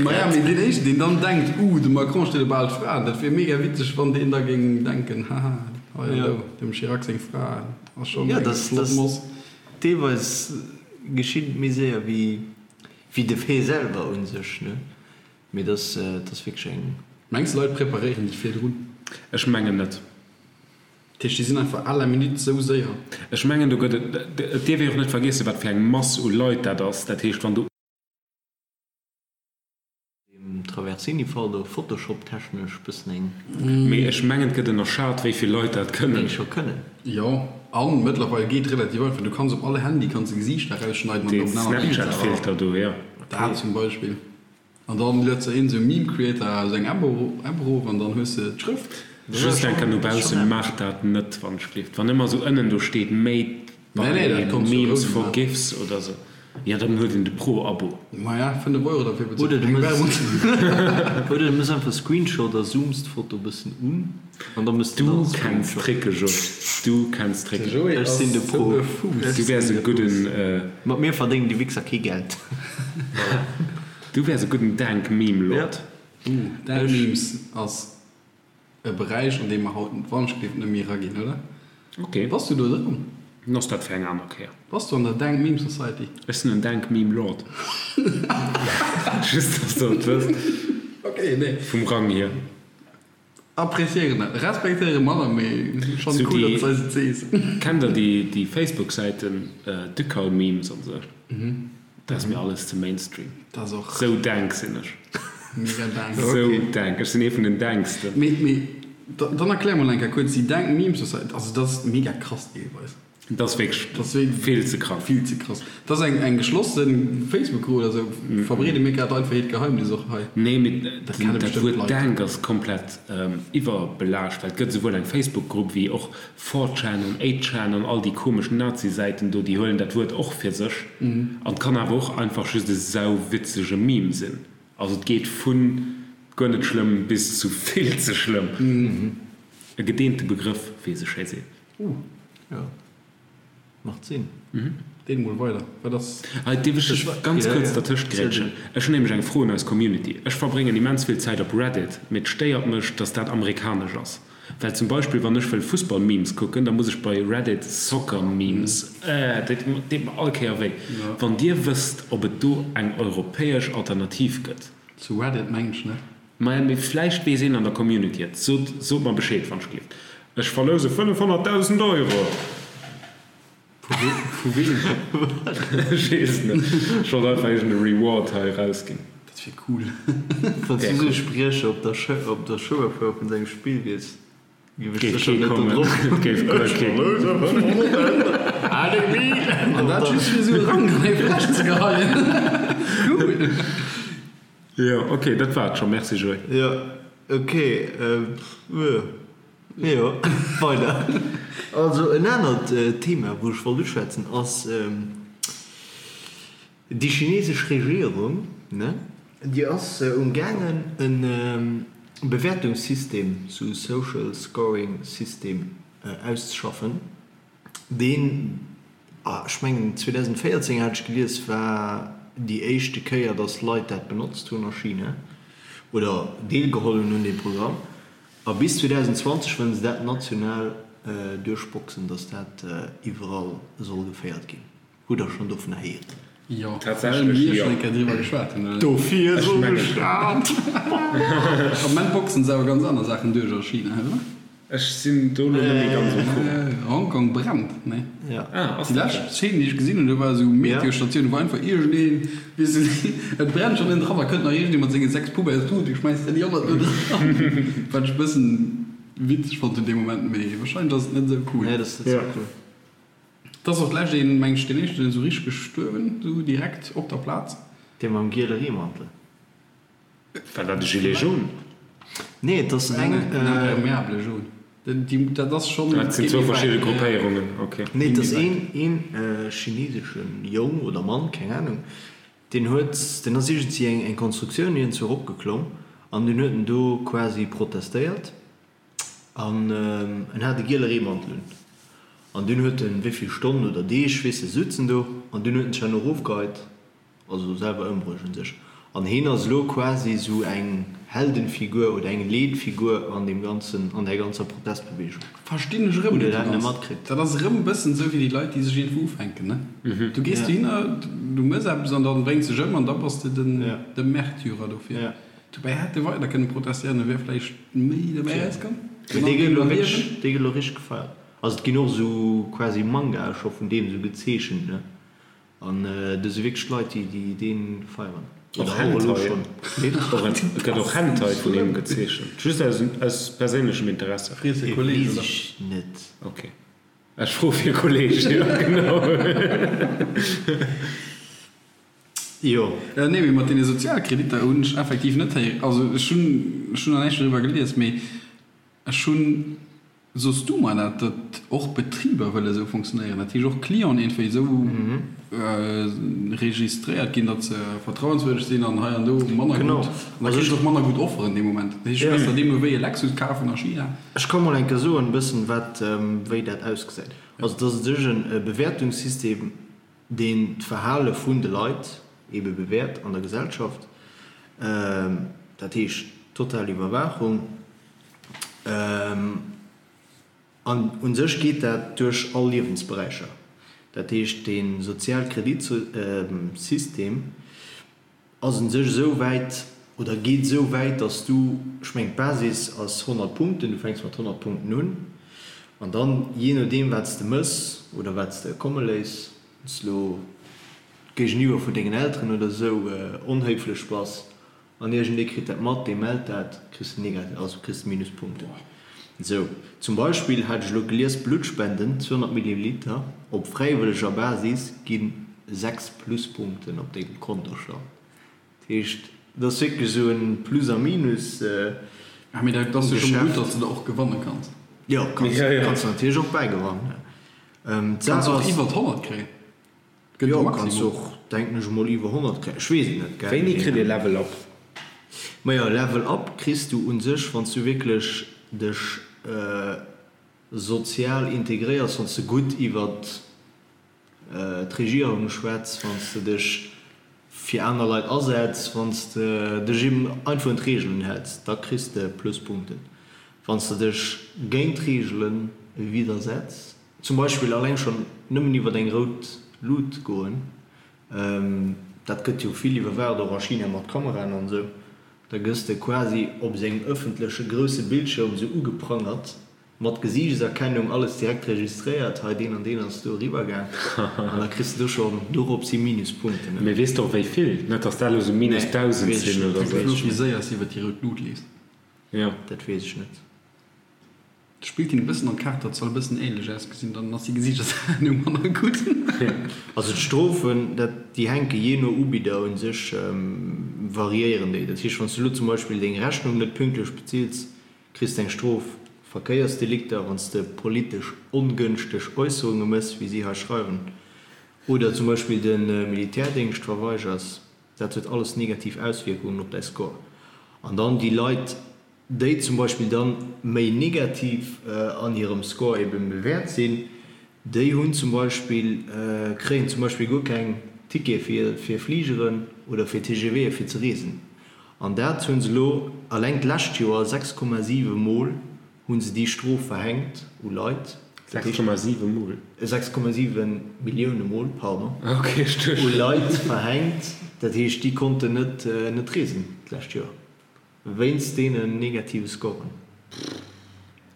S3: Maja, mee deen éischten, deen dann denkt, Uh, de Macron steet op al Fraen, dat wier mega witzeg, wann deen da géing denken, Haha, hei an do, dem Chirac seng Fra ass schonn
S2: eng flott Moss. Deelweis geschitt et méi séier wéi de Fait selwer un sech, ne? Mee dat ass wierklech eng.
S3: Mengs de Leit preparéieren déi virdrun?
S1: Ech mengen net.
S3: Dat heescht déi sinn einfach à la minute sou séier?
S1: Ech mengen do gëtt et, et dierf ee och net vergiessen wat fir eng Mass u Leit dat ass. Dat heescht wann do.
S2: Deem Traversini-Fall do Photoshop-technesch bëssen eng.
S1: Mee ech mengen et gëtt ënnerschat wéi vill Leit dat kënnen.
S2: Déi scho kënnen.
S3: Jo, an mëttlerweil geet relativ einfach, du kanns op all Handy kanns de Gesiichter erausschneiden an
S1: op en anert Bild setzen. Dee Snapchat-Filter do, jo.
S3: Dat zum Beispill. An dann luet se een sou Meme Creator aus eng App erof an dann hues de d'Schrëft.
S1: Just eng Kéier no baussen, maacht dat net wann ech gleeft. Wann ëmmer sou ënnen do steet made by memes for gifs oder sou, jo dann huet een de Pro Abo.
S3: Maja 5 Euro derfir
S2: bezuelt fir keng Werbung. Oder du mëss einfach Screenshot a zooms d'Foto bëssen un an da mëss
S1: de dann Du kenns Tricke Joé, du kenns Tricke.
S2: Ech sinn de Pro.
S1: Du wäers e gudden.
S2: Mat mir verdéngen déi Wichser kee Geld.
S1: Voilà. Du wärs e gudden Dank Meme Lord.
S3: Ooh, Dank Memes ass e Beräich an dee mer haut wanschgelift net méi eraginn, oder?
S1: Ok.
S3: Bass du do dran?
S1: Dann ass dat fir eng aner Kéier.
S3: Bass du an der Dank Meme Society?
S1: Ech sinn en Dank Meme Lord. Just dass der et wësst.
S3: Ok, nee.
S1: Vum Rang hier.
S3: Appréciéieren dat, respektéieren manner, mee schon
S1: Sou
S3: cool,
S1: déi,
S3: datt s eis et sees.
S1: Kennt der déi déi Facebook-Säiten Ducal Memes an sou? Dat ass mir alles ze Mainstream.
S3: Dat ass och
S1: Sou dank sinn ech.
S3: mega dank.
S1: Sou dank. Ech sinn ee vun den danksten.
S3: Mee mee dann erklär mol eng Kéier kuerz déi dank Meme Society, also dat ass mega krass deelweis.
S1: Dat ass wierklech vill ze krass.
S3: Vill ze krass. Dat ass eng eng geschlosse Facebook-Grupp oder sou. Verbreede mir grad einfach hiert Geheimnis och hei.
S1: Nee, mee dat Wuert Dank ass komplett iwwerbelaascht, well et gëtt esouwuel eng Facebook-Grupp wéi och 4chan an 8chan an all déi komesch Nazi-Säiten do, déi huelen dat Wuert och fir sech. An et kann awer och einfach just e sauwitzege Meme sinn. Also et geet vu guer net schlëmm bis zu vill ze schlëmm. E gedeente Begrëff, wéi ee sou schéi seet.
S2: Uh, jo, macht Sinn.
S3: Deen mol weider, wat ass.
S1: Hei dierf ech dech ganz kuerz dertëscht grätschen. Ech hunn nämlech eng Fro un eis Community. Ech verbréngen immens vill Zäit op Reddit, mee et stéiert mech, dass dat amerikanesch ass. Well zum Beispill wann ech wëll Fussball-Memes kucken, da muss ech bei Reddit Soccer-Memes, äh, dat deet mer all Kéier wéi. Wann dir wësst, ob et do eng europäesch Alternativ gëtt.
S3: Zu Reddit mengen ech net.
S1: Maja, mee vläicht weess een an der Community et. Sot, sot mer Bescheed, wann ech gleeft. Ech verlouse 500.000 Euro!
S3: Vu weem?
S1: Ech weess et net. Ech wollt einfach iergend e Reward hei erausginn.
S3: Dat wier cool.
S2: Wann s du sou e Spriecher op der Chouerfouer vun sengem Spill wiers, géif ech
S1: Géif
S2: sécher
S1: kee
S2: net do
S1: kommen.
S2: drop.
S1: Et géif guer kee.
S3: An dat just fir esou e Rank an eng Fläsch ze geheien. Cool!
S1: Jo, ok, dat war et scho. Merci Joé.
S2: Jo, ok, jo, weider. Also en anert Thema wou ech wollt uschwätzen ass déi chinesesch Regierung, ne, déi ass um gaangen e Bewäertungssystem, sou Social Scoring System auszeschaffen, Deen, ech mengen 2014 hat ech gelies, war déi éischte Kéier, datt Leit dat benotzt hunn a China oder deelgeholl hunn un deem Programm. A bis 2020 wëllen se dat national duerchboxen, datt dat iwwerall soll geféiert ginn. Hutt der schonn dovunner héieren?
S3: Jo,
S1: well
S3: mir schonn eng Kéier driwwer geschwat hunn, oder?
S2: Dofir soll de Staat!
S3: Am Moment boxen se awer ganz aner Saachen duerch a China, oder?
S1: Ech sinn do lo net méi ganz um Courant.
S3: Hongkong brennt, nee?
S1: Ah, ass
S3: Déi
S1: dat
S3: lescht
S1: dat?
S3: Szene, déi ech gesinn hunn, do war esou Meteostatioun, wou einfach iergendeen, weess de, et brennt schonn ënnen dran, da kënnt nach iergendee mat senge 6 Poubelles, du, du schmäiss der déi 100 do dran. Wat ech e bëssen witzeg fonnt hunn dee Moment, mee wahrscheinlech ass et net esou cool.
S2: Nee, dat ass net esou cool.
S3: Et ass och d'lescht een, meng ech, deen éischten esou richteg gestuerwen, esou direkt op der Plaz.
S2: Dee mam giele Reemantel.
S1: War dat e Gilet jaune?
S2: Nee, et ass eng.
S3: En imperméable jaune. Dat ass schonn.
S1: Dat sinn zwou verschidde Gruppéierungen, ok.
S2: Nee, et ass een, een chineseschen Jong oder Mann, keng Ahnung, deen huet, deen ass iergendwéi eng, eng Konstruktioun iergendzwou eropgeklomm an dunn huet en do quasi protestéiert. An en hat e giele Reemantel un. An dunn huet en, wéi vill Stonnen oder Deeg, weess de, sutzen do. An dunn huet en sech herno erofgeheit, also selwer ëmbruecht un sech. An heen ass elo quasi esou eng Heldenfigur oder eng Leetfigur an deem ganzen, an där ganzer Protestbewegung.
S3: Verstinn ech erëm
S2: net ganz. Matkritt?
S3: Dat ass erëm e bëssen esou wéi déi Leit, déi sech iergendwou ufänken, ne? Du gees dohinner, du mëss eppes an dann bréngs dech ëm an da bass de den, de Märtyrer dofir. Dobäi hätt e weider kënne protestéieren, e wär vläicht méi dobäi erauskomm.
S2: Mee dee gëtt elo wierklech, dee gëtt elo richteg gefeiert. Also et ginn och esou quasi Mangae scho vun deem esou gezeechent, ne? An do si wierklech Leit, déi déi dee feieren.
S1: Och Hentai. Et gëtt och Hentai vun him gezeechent. Just aus aus perséinlechem Interesse.
S3: Frees e Kolleg,
S2: Weess ech net.
S1: Ok. Ech froe fir e Kolleg, jo genau.
S2: Jo.
S3: Nee, mee mat deene Sozialkreditter hunn ech effektiv net héieren. Also ech hunn, ech hunn nach näischt doriwwer gelies, mee ech hunn, soss du mer dat, datt och Betriber wëlle esou fonctionnéieren, dat heescht och Clienten iergendwéi esou registréiert ginn, datt se vertrauenswürdeg sinn an hei an do manner gutt, an da kriss de och manner gutt Offeren dee Moment. Dat heescht, du kanns der deemno wéi e Lexus kafen a China.
S2: Ech ka mol eng Kéier soen e bëssen, wat, wéi dat ausgesäit. Also et ass u sech e Bewäertungssystem, deen d'Verhale vun de Leit ebe bewäert an der Gesellschaft, dat heescht total Iwwerwaachung. An u sech geet dat duerch all Liewensberäicher. Dat heescht, dee Sozialkreditsystem ass u sech esou wäit oder geet esou wäit, datt s du, ech mengen d'Basis ass 100 Punkten, du fänks mat 100 Punkten un an dann, jee nodeem wat s de mëss oder wat s de komme léiss, wann s de elo géigeniwwer vun dengen Elteren oder esou onhéiflech bass an iergendee kritt dat mat, dee mellt dat, kriss de negativ, also kriss de Minuspunkten. Esou zum Beispill hat ech elo gelies, Bluttspenden, 200 Milliliter, op fräiwëlleger Basis gi 6 Pluspunkten op dengem Kontostand. Dat heescht, et ass wierklech esou e Plus a Minus
S3: Ah, mee dat ass jo scho mol gutt, datt s de der och gewanne kanns.
S2: Jo, kanns de natierlech och bäigewannen.
S3: Kanns och iwwer 100 kréien.
S2: Gëtt e Maximum. Jo, kanns och, denken ech emol, iwwer 100 kréien. Ech weess et net,
S1: gell. Wéini kritt ee Level Up?
S2: Majo, Level Up kriss du un sech, wann s du wierklech dech sozial integréiers, wann s de gutt iwwert d'Regierung schwätz, wann s de dech fir aner Leit asetz, wann s de dech eben einfach un d'Reegelen häls, da kriss de Pluspunkten. Wann s de dech géint d'Reegele widdersetz, Zum Beispill alleng schonn nëmmen iwwer eng rout Lut goen, dat gëtt jo vill iwwerwaacht, och a China mat Kameraen an esou, da gëss de quasi op sengem ëffentleche grousse Bildschirm esou ugeprangert, mat Gesiichtserkennung, alles direkt registréiert, hei deen an deen ass do eriwwer gaang, an da kriss de do schonn dorops hi Minuspunkten.
S1: Mee weess de och wéi vill? Net dass dat elo sou minus 1.000 sinn oder
S3: esou. Wéi séier s de iwwer déi rout Lut leefs.
S1: Jo.
S2: Dat weess ech net.
S3: Spillt him e bëssen an d'Kaart, dat soll e bëssen ähnlech ausgesinn, dann ass déi Gesiichtserkennung manner gutt.
S2: Also d'Strofen, dat, déi hänke jee no Ubidder un sech, variéieren déi. Dat heescht, wann s du elo zum Beispill deng Rechnung net pünktlech bezills, kriss de eng Strof. Verkéiersdelikter, wann s de politesch ongënschteg Äusserunge mëss, wéi si hei schreiwen, oder zum Beispill de Militärdéngscht verweigers, dat huet alles negativ Auswierkungen op däi Score. An dann déi Leit, déi zum Beispill dann méi negativ an hirem Score eben bewäert sinn, déi hunn zum Beispill, kréien zum Beispill guer keng Tickete fir fir Fligeren oder fir TGVe fir ze reesen. An dat hu se elo alleng d'lescht Joer 6,7 mol hu se déi Strof verhänkt u Leit.
S1: 6,7 mol?
S2: 6,7 Millioune mol, pardon, u Leit verhänkt. Dat heescht, déi konnten net net reesen d'lescht Joer. Wéinst deenen negative Scoren.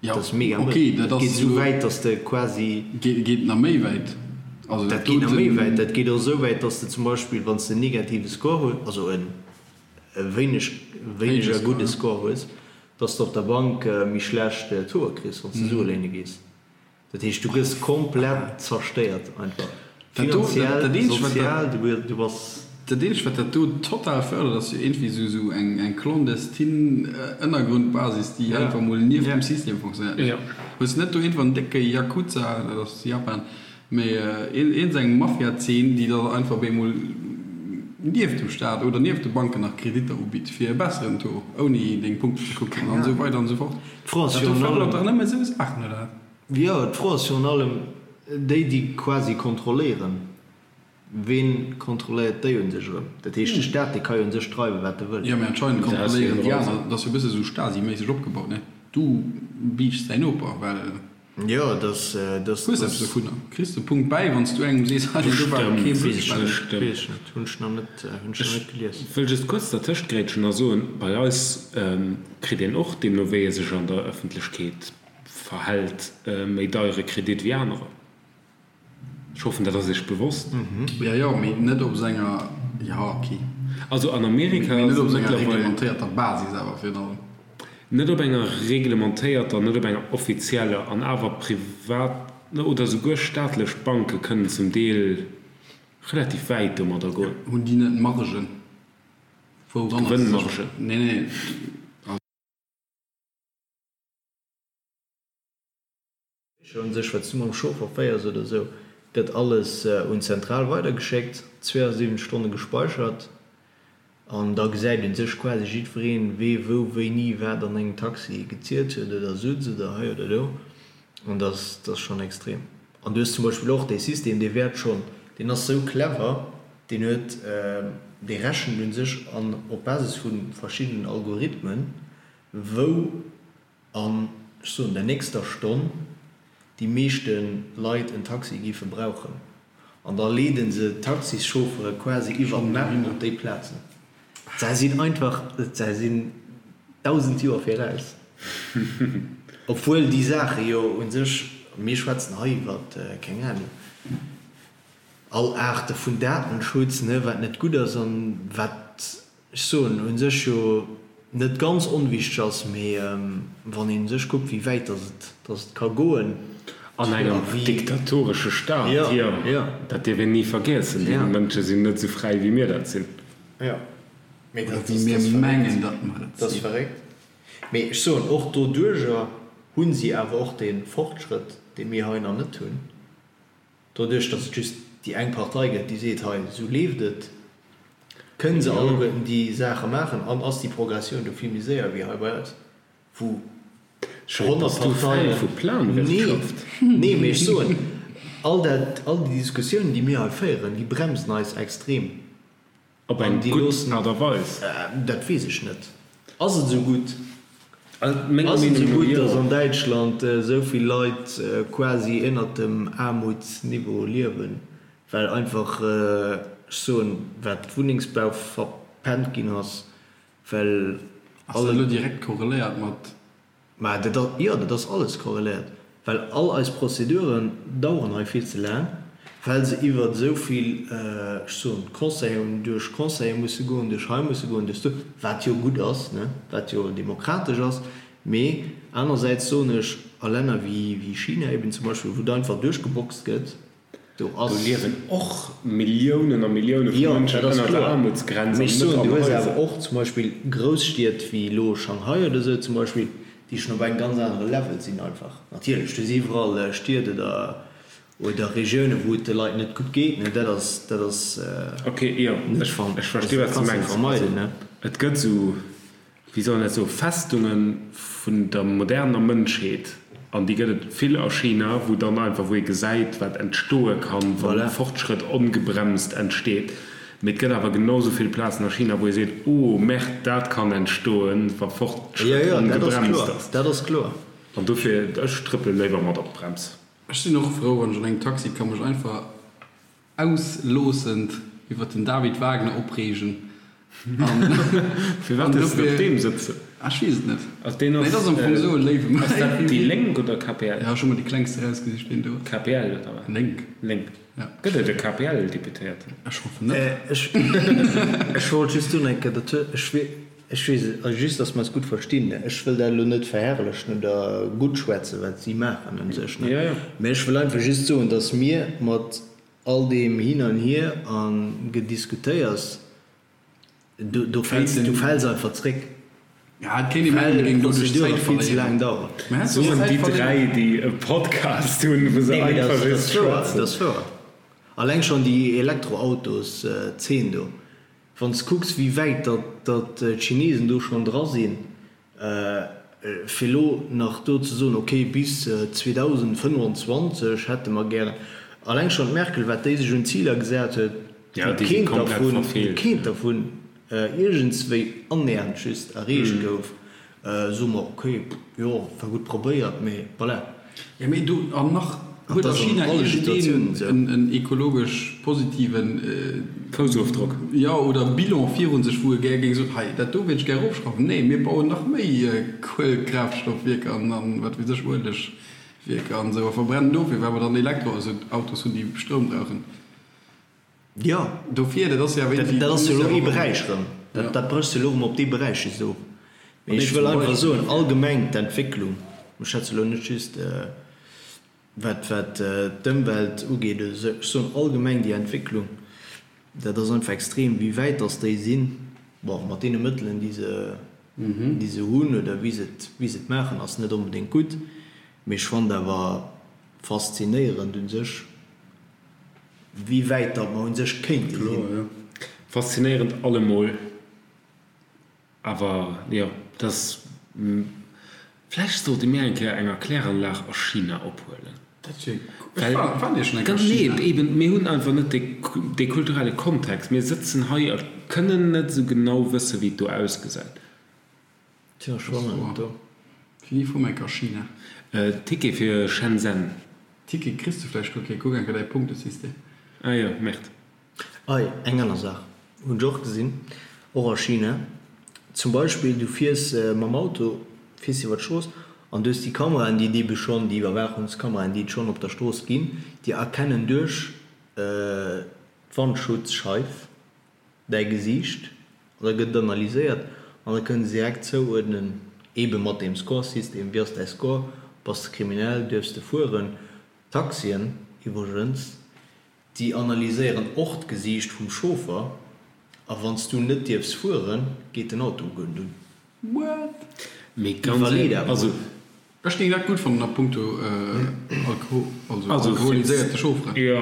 S3: Ja, dat ass mega mëll. Okay, dat
S2: geet esou wäit, dass de quasi.
S3: Geet nach méi wäit.
S2: Also dat geet nach méi wäit. Dat geet och esou wäit, dass de zum Beispill, wann s de en negative Score hues, also e wéineg, wéineger gudde Score hues, dass de op der Bank méi schlecht Tauxe kriss, wann s de Sue léine gees. Dat heescht, du gëss komplett zerstéiert einfach. Finanziell, sozial, du bass.
S3: Dat eenzegt, wat dat do total fërdert, ass jo iergendwéi esou esou eng clandestine Ënnergrundbasis, déi einfach mol nieft dem System fonctionnéiert. Hues de net do iergendwann en décke Yakuza, dat ass Japan, mee iergend eng Mafia-Zeen, déi da einfach op eemol. nieft dem Staat oder nieft de Banken nach Kreditter ubitt fir e besseren Taux, ouni deng Punkten ze kucken an esou weider an esou fort.
S2: D'Fro ass
S3: Dat do
S2: virun
S3: fërdert
S2: allem.
S3: dach nëmme esou Saachen, oder wat?
S2: Jo, d'Fro ass virun allem déi, déi quasi kontrolléieren. Ween kontrolléiert déi un sech erëm? Dat heescht, de Staat, dee ka jo un sech dreiwen, wat e wëll.
S3: Jo, mee anscheinend kontrolléieren déi aner. Dat ass jo e bësse sou Stasi-méisseg opgebaut, ne? Du biichts däin Noper, well.
S2: Jo, dass, dass.
S3: Hues eppes dovunner. Kriss de Punkt bäi, wann s du engem sees, hei, do war kee
S2: Weess ech net, weess ech net, hunn ech nach net, hunn ech nach net gelies.
S1: Ech wëll just kuerz dertëscht grätschen a soen, bei eis kritt een och, deemno wéi ee sech an der Ëffentlechkeet verhält, méi deiere Kredit wéi anerer. Ech hoffen, dat ass Iech bewosst.
S3: Jo, jo, mee net op senger, jo, ok.
S1: Also an Amerika
S3: Mee net op senger reglementéierter Basis awer virun allem.
S1: Net op enger reglementéierter, net op enger offizieller, an awer privat oder souguer staatlech Banke kënnen zum Deel relativ wäit domadder goen.
S3: Hunn déi net Margen? Wouranner se sech.
S1: Gewënnmargen?
S3: Nee, nee.
S2: Un sech, wat s du mam Chauffer féiers oder esou, gëtt alles un d'Zentral weidergeschéckt, 72 Stonne gespeichert an da gesäit un sech quasi jiddwereen, wee wou wéini wat an engem Taxi gezielt huet oder sutz oder hei oder do an dat ass schonn extrem. An du hues zum Beispill och dee System, dee wäert schonn, deen ass esou clever, deen huet, dee rechent un sech an op Basis vu verschiddenen Algorithmen, wou an, ech soen, der nächster Stonn déi meeschte Leit en Taxi géife brauchen. An da leede se d'Taxischauffere quasi iwwer d'Map op déi Plazen. Se sinn einfach, se sinn 1.000 Joer viraus. Obwuel déi Saache jo u sech, mir schwätzen hei iwwer, keng Ahnung, all Aarte vun Datenschutz, ne, wat net gutt ass an wat ech soen, u sech jo net ganz onwichteg ass, mee wann een u sech kuckt, wéi wäit dass et, dass et ka goen.
S1: An engem diktatoresche Staat, jo, dat dierf een ni vergiessen. Déi Mënsche sinn net esou fräi, wéi mir dat sinn.
S2: Jo, mee
S3: Oder
S2: dat
S3: wéi mir
S2: ass
S3: mengen,
S2: verréckt.
S3: datt mer et
S2: Dat ass
S3: sinn.
S2: verréckt. Mee ech soen, och doduerjer hu si awer och dee Fortschrëtt, dee mir hei nach net hunn. Doduerch, datt et just déi eng Partei gëtt, déi seet, hei, esou leeft et, kënne se alleguerten déi Saache maachen an ass déi Progressioun do vill méi séier wéi hei bei eis, wou 100 Parteien. Nee, nee, mee ech soen, all dat, all déi Diskussiounen, déi mir hei féieren, déi bremsen eis extrem.
S1: Op eng gutt Aart a Weis?
S2: Dat weess ech net. Ass et esou gutt? Ass et esou gutt, datt an Däitschland esou vill Leit quasi ënnert dem Aarmutsniveau liewen, well einfach, ech soen, wat Wunnengsbau verpennt ginn ass, well
S3: Ass dat elo direkt korreléiert mat
S2: Mä dat ass, jo, dat ass alles korreléiert, well all eis Prozeduren daueren hei vill ze laang, well se iwwer esou vill, ech soen, Conseillen, duerch Conseile musse goen, duerch hei musse goen, duerch do, wat jo gutt ass, ne, wat jo demokratesch ass. Mee anersäits soen ech, a Länner wéi China eben zum Beispill, wou et einfach duerchgeboxt gëtt, Do
S1: ass. Do liewen och Milliounen a Millioune vu Mënschen ënner der Aarmutsgrenz
S2: an net an
S1: Haiser.
S2: Du hues awer och zum Beispill Grousstied wéi elo Shanghai oder esou zum Beispill, déi schonn op engem ganz anere Level sinn einfach. Natierlech, du hues iwwerall Stied oder oder Regiounen, wou et de Leit net gutt geet, ne, dat ass, dat ass
S1: Ok, jo,
S2: net
S1: ech versti wat s du mengs.
S2: vermeiden, ne.
S1: Et gëtt esou wéi soll een dat soen, Festunge vun der moderner Mënschheet, an déi gëtt et vill a China, wou dann einfach, wou ee gesäit, wat entstoe kann, wa
S2: Voilà.
S1: Fortschrëtt ongebremst entsteet. Mee et gëtt awer genau sou vill Plazen a China, wou ee seet, oh Merde, dat kann entstoen, wa
S2: Jo,
S1: Fortschrëtt
S2: jo, dat ass
S1: ongebremst
S2: kloer,
S1: ass.
S2: dat ass kloer.
S1: An dofir, ech trëppele léiwer mat op d'Brems.
S3: Ech sinn och frou, wann ech an engem Taxi ka mech einfach ausloossend iwwer den David Wagner opreegen an
S1: Firwat hues de op deem sëtzen?
S3: Ah, ech weess et net.
S1: Also deen
S3: Nee,
S1: ass,
S3: dat ass am Fong esou e léiwe Mann.
S1: Ass dat déi Lénk oder KPL?
S3: Ja, ech hu mer déi klengst erausgesicht, deen do ass.
S1: KPL oder wat?
S3: Lénk.
S1: Lénk.
S3: Ja.
S1: Gëtt et e KPL-Deputéierten?
S3: Ech hoffen net.
S2: Ech, ech wollt just soen eng Kéier, dat huet, ech wee, ech weess et, also just, datt mer eis gutt verstinn, ne, ech wëll dat elo net verherrlechen oder guttschwätzen, wat si maachen un sech, ne,
S1: Ja, ja.
S2: mä ech wëll einfach just soen, datt mir mat all deem Hin an Hier a Gediskutéiers, do, do fäls, du fäls einfach zréck,
S3: Ja, et kéint ee mengen, mir
S2: well
S3: géingen doduerch
S2: d'Prozedure
S3: Zäit
S2: vill ze
S3: verléieren.
S2: laang daueren.
S3: Mä hätt
S1: Soen
S3: Zäit
S1: déi
S3: verléieren.
S1: 3, déi e Podcast hunn, wou se
S2: Nee, mee dat
S1: einfach
S2: ass, dat
S1: just
S2: ass wouer, dat
S1: schwätzen.
S2: ass wouer. Alleng schonn déi Elektroautos-Zeen do. Wann s kucks, wéi wäit datt d'Chinesen do schonn dra sinn, fir elo nach do ze soen, okay, bis 2025 hätte mer gären, alleng schonn d'Merkel, wat déi sech un Ziler gesat huet, wou keent dervun, wou keent dervun iergendswéi annähernd just erreecht gouf, soe mer, okay, jo, war gutt probéiert, mee voilà.
S3: Jo, mee do, an nach huet a China iergendeen en ekologesch positiven
S1: Foussofdrock,
S3: jo, oder Bilan virun sech, wou e gär géing soen, hei, dat do wéilt ech gär erofschrauwen. Nee, mir bauen nach méi Kuelekraaftstoffwierker an wat weess ech, Uelegwierker an esou a verbrennen dofir, well mer dann Elektroautos hunn, déi Stroum brauchen.
S2: Jo,
S3: Dofir, dat ass jo awer
S2: iergendwéi. Dat ass jo elo ee Beräich erëm. Dat bréchs de elo erëm op dee Beräich just of. Mee ech wëll einfach soen, allgemeng d'Entwécklung, ech schwätze elo net just wat wat d'Ëmwelt ugeet oder esou, ech soen allgemeng déi Entwécklung, dat ass einfach extrem, wéi wäit datt déi sinn, bon, mat deene Mëttelen, déi se déi se hunn oder wéi se et wéi se et maachen, ass net onbedéngt gutt. Mee ech fannen awer faszinéierend u sech, Wéi wäit datt mer un sech kéinte sinn.
S1: Faszinéierend allemol, awer jo, dass vläicht sollte mir eng Kéier eng Erkläranlag a China ophuelen.
S3: Dat wier cool. Ech war jo schonn eng Kéier a China.
S1: Nee, eben, mir hunn einfach net dee kulturelle Kontext. Mir sëtzen hei a kënnen net esou genau wëssen, wéi et do ausgesäit.
S2: Tja, ech war nach net do.
S3: Wéini fuer mer enk a China?
S1: Ticket fir Shenzhen.
S3: Ticket kriss de vläicht guer kee, kuck enker däi Punktesystem.
S1: Ah jo, Merde.
S2: Ei, eng aner Saach hunn ech och gesinn, och a China. Zum Beispill, du fiers mam Auto, fiers iwwer d'Strooss an du hues déi Kameraen, déi et ebe schonn, déi Iwwerwaachungskameraen, déi et schonn op der Strooss ginn, déi erkennen duerch d'Wandschutzscheif, däi Gesiicht an da gëtt et analyséiert an da kënne se direkt zouuerdnen, eebe mat deem Score-System, wéi ass däi Score, bass de kriminell, duerfs de fueren. D'Taxien iwwregens, déi analyséieren och d'Gesiicht vum Chauffer a wann s du net dierfs fueren, geet den Auto guer net un.
S3: What?
S1: Mee ganz
S2: Iwwerlee dat
S1: also.
S2: mol.
S3: Ech géing dat gutt fannen a punkto also alkoholiséierte Chaufferen.
S1: Jo.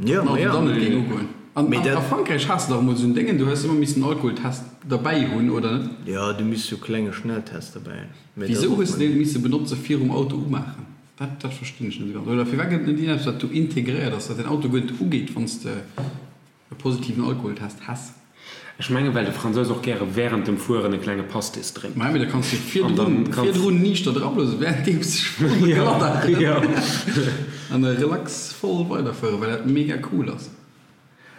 S2: Jo, ma jo.
S3: Dann et géing ugoen. An a Frankräich has de dach emol esou en Déngen, do hues de ëmmer missen en Alkoholtest derbäi hunn, oder net?
S2: Jo, du misst sou klenge Schnelltest derbäi hunn. Mee dat
S3: Wisou
S2: ass
S3: hues
S2: och
S3: de deen misse benotze virum Auto umaachen? Dat dat verstinn ech net esou ganz. Oder firwat gëtt et net iergendeppes wat do integréiert ass, datt den Auto guer net ugeet, wann s de E positiven Alkoholtest häss.
S1: Ech mengen, well de Fransous och gäre während dem Fueren e klenge Pastis drénkt.
S3: Maja, mee da kanns du virdrun, virdrun niichter drablose währenddeems de voll glatt an da relax voll weiderfueren, well dat mega cool ass.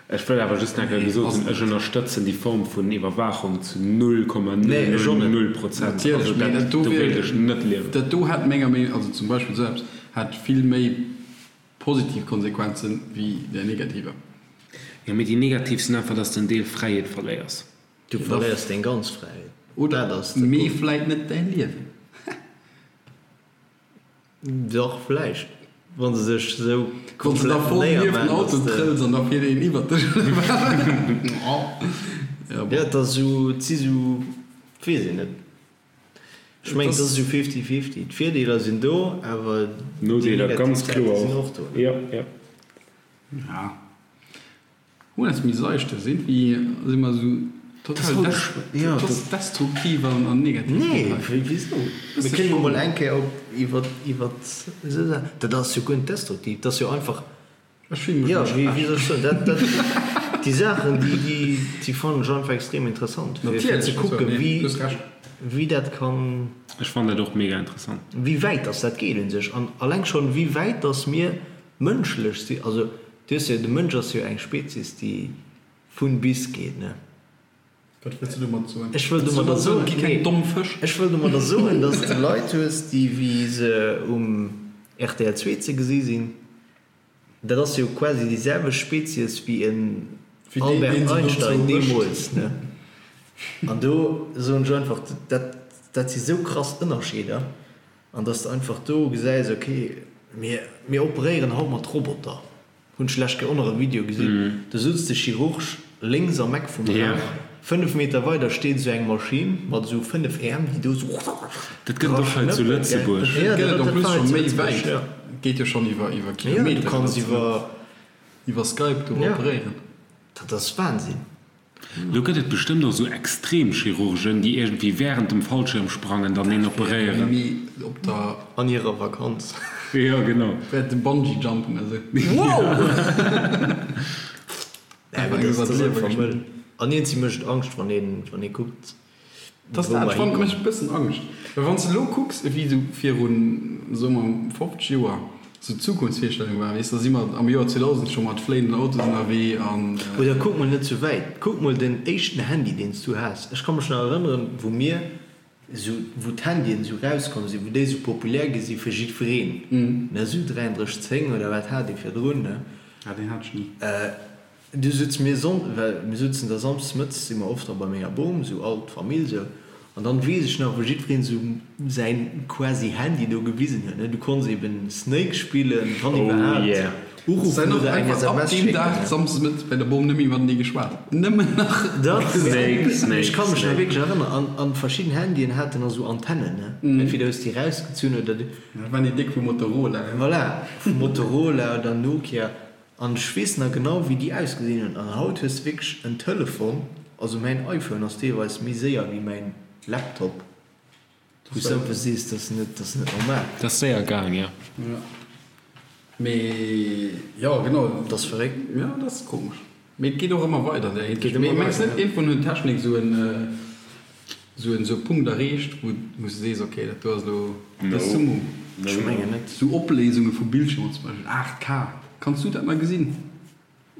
S1: Ech wëll awer just nach eng Kéier gesot hunn, ech ënnerstëtzen déi Form vun Iwwerwaachung zu 0,000 Prozent.
S3: Natierlech, mee dat do
S1: wéilt ech net liewen.
S3: Dat do hätt menger Meenung, also zum Beispill esou eppes, hätt vill méi Positiv Konsequenzen wéi där negativer.
S1: Jo, mee déi negativ sinn einfach, dass de en Deel Fräiheet verléiers.
S2: Du verléiers deng ganz Fräiheet.
S3: Oder,
S2: Dat ass de
S3: mee
S2: Punkt.
S3: vläit net däi Liewen.
S2: Dach, vläicht, wa se sech esou
S3: Wann s de da
S2: komplett
S3: voll nieft den
S2: néiermaan,
S3: Auto
S2: dass de.
S3: trëlls an da fiert een iwwert dech, oder wat? Ja,
S2: Jo,
S3: bon.
S2: et ass esou, et si sou, weess een net. Ech mengen, et ass esou fifty fifty. D'Virdeeler sinn do, awer déi
S1: Nodeeler
S2: negativ
S1: ganz
S2: Säite
S1: kloer
S2: sinn
S1: och.
S2: och do.
S1: Jo, jo.
S3: Ja. Hunn eis méi seichte sinn, wéi si mer esou total des destruktiv an an negativ
S2: Nee,
S3: drop hei.
S2: wisou? Mir kënnen jo mol eng Kéier op iwwer iwwer esou Saachen, dat ass jo guer net destruktiv, dat ass jo einfach
S3: Ech fillen mech
S2: Jo,
S3: elo
S2: wéi wéi
S3: schlecht.
S2: soll ech soen, dat, dat, déi Saachen, déi, déi, déi fannen ech einfach extrem interessant, fir, fir ze
S3: Natierlech, also,
S2: kucken,
S3: nee,
S2: wéi,
S3: du hues Recht.
S2: wéi dat kann.
S1: Ech fannen dat och mega interessant.
S2: Wéi wäit dass dat geet un sech an alleng schonn, wéi wäit dass mir mënschlech sinn. Also, du hues jo, de Mënsch ass jo eng Spezies, déi vun bis geet, ne?
S3: Wat wëlls du domat soen?
S2: Ech wëll domadder soen,
S3: Et gi keng domm Fësch.
S2: Ech wëll domadder soen, dass de Leit hues, déi wéi se um rtl 2 ze gesi sinn, dat ass jo quasi déi selwecht Spezies wéi en Albert Einstein deemools, ne? An do soen ech einfach, dat, dat si sou krass Ënnerscheeder, an dass de einfach do gesäis, okay, mir, mir operéieren haut mat Roboter. Hunn ech lech och nach e Video gesinn, do sutzt de Chirurg lénks am Eck vum Raum, 5 Meter weider steet esou eng Maschinn mat esou 5 Äerm, déi do esou
S1: Dat gëtt et och hei zu Lëtzebuerg.
S3: Dat gëtt et en plus scho méi wäit, geet jo schonn iwwer iwwer Kilometer.
S2: Du kanns iwwer
S3: iwwer Skype do operéieren.
S2: Dat ass Wahnsinn.
S1: Lo gëtt et bestëmmt och sou Extremchirurgen, déi iergendwéi während dem Fallschirmsprangen dann een operéieren.
S3: Mee op der.
S2: An hirer Vakanz.
S1: Jo, genau.
S3: Während dem Bungee-Jumpen esou.
S2: Wow! Nee, mee dat ass einfach mëll. An iergendwéi mécht et Angscht, wann een, wann ee kuckt,
S3: Dass dat fand mécht e bëssen Angscht, well wann s de elo kucks ewéi esou virun, soe mer, 50 Joer esou d'Zukunftsvirstellung war, weess, da si mer am Joer 2000 scho mat fléienden Autos ënnerwee an.
S2: Oder kuck mol net sou wäit, kuck mol den éischten Handy deen s du has. Ech ka mech nach erënneren, wou mir esou, wou d'Handyen esou rauskomm sinn, wou déi esou populär gi si fir jiddwereen, ne, esou 3310 oder wat hat ee virdrun, ne?
S3: Ah, deen hat ech ni.
S2: Du sutz mir Sonn, well mir sutzen da Samsdes mëttes si mer oft da bei menger Bom, sou all d'Famill sou, an dann weess ech nach wou jiddwereen sou säin quasi Handy do gewisen huet, ne, du konns eben Snake spillen, wann
S1: Oh
S2: iwwerhaapt,
S1: yeah.
S2: uruffen
S3: Sen och
S2: oder eng
S3: einfach ab
S2: SMS
S3: deem
S2: schécken,
S3: Dag
S2: ne.
S3: Samsdes mëttes bei der Bom nëmme matenee geschwat, nëmmen nach
S2: Dach,
S1: Snake,
S2: ech
S1: Snake,
S2: ka mech nach
S1: Snake.
S2: wierklech erënneren, an an verschidden Handyen haten nach sou Antennen, ne, entweder hues déi rausgezunn oder du.
S3: Dat waren déi déck vu Motorola, ne.
S2: Voilà, vu Motorola oder Nokia. An ech weess nach genau wéi déi ausgesinn hunn. An haut hues de wierklech en Telefon, also mäin iPhone ass deelweis méi séier wéi mäin Laptop, wou s de einfach sees, dat ass net, dat ass net normal.
S1: Dat ass séier gaang, jo.
S3: Jo, mee jo, genau.
S2: Dat ass verréckt.
S3: Jo, dat ass komesch. Mee et geet och ëmmer weider an där
S2: Et geet
S3: Hinsicht. Mee
S2: ëmmer
S3: mengs
S2: weider,
S3: net,
S2: ja.
S3: iergendwann huet d'Technik esou en, esou en, esou e Punkt erreecht, wou, wou s de sees, okay, dat do ass elo
S1: No.
S3: de Summum.
S1: No,
S2: Ech
S1: no.
S2: mengen net.
S3: Esou Opléisunge vu Bildschirmer zum Beispill, 8K, kanns du dat nach gesinn?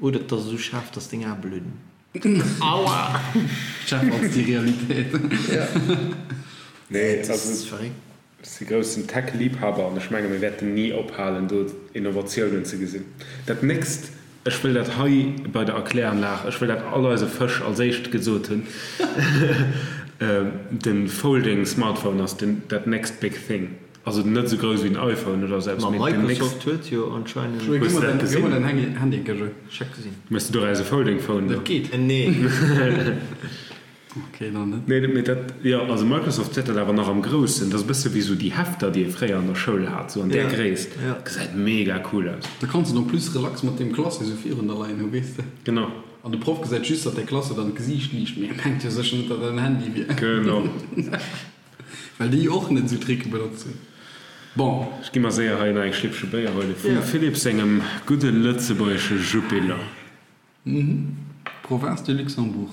S2: Oder et ass esou schaarf, dass deng Ae bludden.
S1: Aua!
S3: Schärfer als déi Realitéit.
S2: Ja.
S1: Nee,
S2: Dat
S1: also
S2: ass verréckt.
S1: Ech si groussen Tech-Liebhaber an ech menge mir wäerten ni ophalen do Innovatiounen ze gesinn. Dat nächst, ech wëll dat hei bei der Erkläranlag, ech wëll dat all eise Fësch als éischt gesot hunn, de Folding Smartphone ass den dat next big thing. Also net esou grouss wéi den iPhone oder esou eppes,
S2: Ma
S1: mee den next.
S2: Microsoft huet jo anscheinend.
S1: Hues de dat
S3: Gëmm mer
S1: gesinn?
S3: däin Handy, Gësche.
S2: Ech hat gesinn.
S1: Méchs du doraus e Folding Phone?
S3: Dat geet.
S2: Nee.
S3: Ok, dann net.
S1: Nee, mee dat, jo, also Microsoft huet dat awer nach am Groussen. Dat ass e bësse wéi esou déi Hefter, déi ee fréier an der Schoul hat, esou an där
S2: Ja,
S1: Gréisst.
S2: ja.
S1: Gesäit mega cool aus.
S3: Da kanns de et en plus relax mat deem Classé esou virun der leien hu, weess de.
S1: Genau.
S3: An de Proff gesäit just, datt däi Classé dann d'Gesiicht liicht, mee e mengt jo sécher net, datt dat en Handy wier.
S1: Genau.
S3: Well déi och net esou Tricke benotzen. Bon.
S1: Ech gi mer séier hei nach eng Schlippche Béier huele vum
S2: Ja.
S1: Philippe sengem gudde lëtzebuergesche Jupiler.
S3: Province du Luxembourg,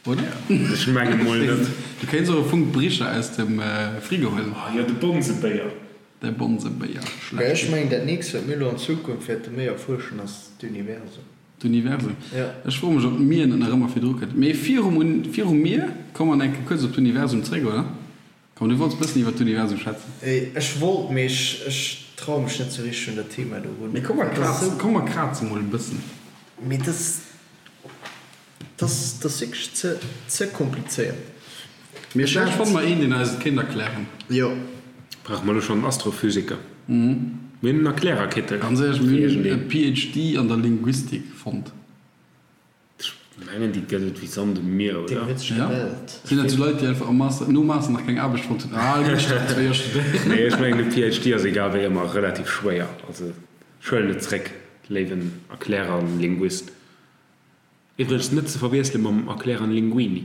S3: oder?
S1: Ech menge mol net.
S3: Du kéints och e Funk Bricher aus dem Frigo huelen.
S1: Oh jo, de Bonzebéier.
S3: De Bonzebéier,
S2: Mä ech
S3: schlecht.
S2: mengen, dat nächst, wat mir elo an Zukunft wäerte méi erfuerschen, ass d'Universum.
S3: D'Universum.
S2: Ja.
S3: Ech froe mech, ob d'Mier net nach ëmmer virdru kënnt. Mee virum, virum Mier komme mer nach eng Kéier kuerz op d'Universum zréck, oder? Komm, du wollts bëssen iwwer d'Universum schwätzen.
S2: Ech wollt, mee ech traue mech net sou richteg un dat Thema do run.
S3: Mee komm, mer krazen, komm, mer kraze mol e bëssen.
S2: Mee dat ass, dat ass wierklech ze, ze komplizéiert.
S3: Mee vläicht fanne mer een, deen eis et kéint erklären.
S2: Jo.
S1: Brauche mer elo schonn en Astrophysiker? Mir hunn en Erklärerkittel.
S3: Ganz éierlech, mir hunn e PhD an der Linguistik fonnt.
S1: Ech mengen déi gëtt et wéi Sand um Mier,
S2: Deen
S1: oder?
S2: huet sech
S3: Ja.
S2: gemellt.
S3: Sinn dat sou Leit, déi einfach am Master, nom Master nach keng Aarbecht fonnt hunn? Ah, elo muss ech nach zwéi Joer studéieren.
S1: Nee, ech mengen de PhD ass egal wéi ëmmer relativ schwéier. Also ech huelen et zréck, léiwen Erklärer an Linguist. Iwwregens net ze verwiessele mam Erklärer Linguini.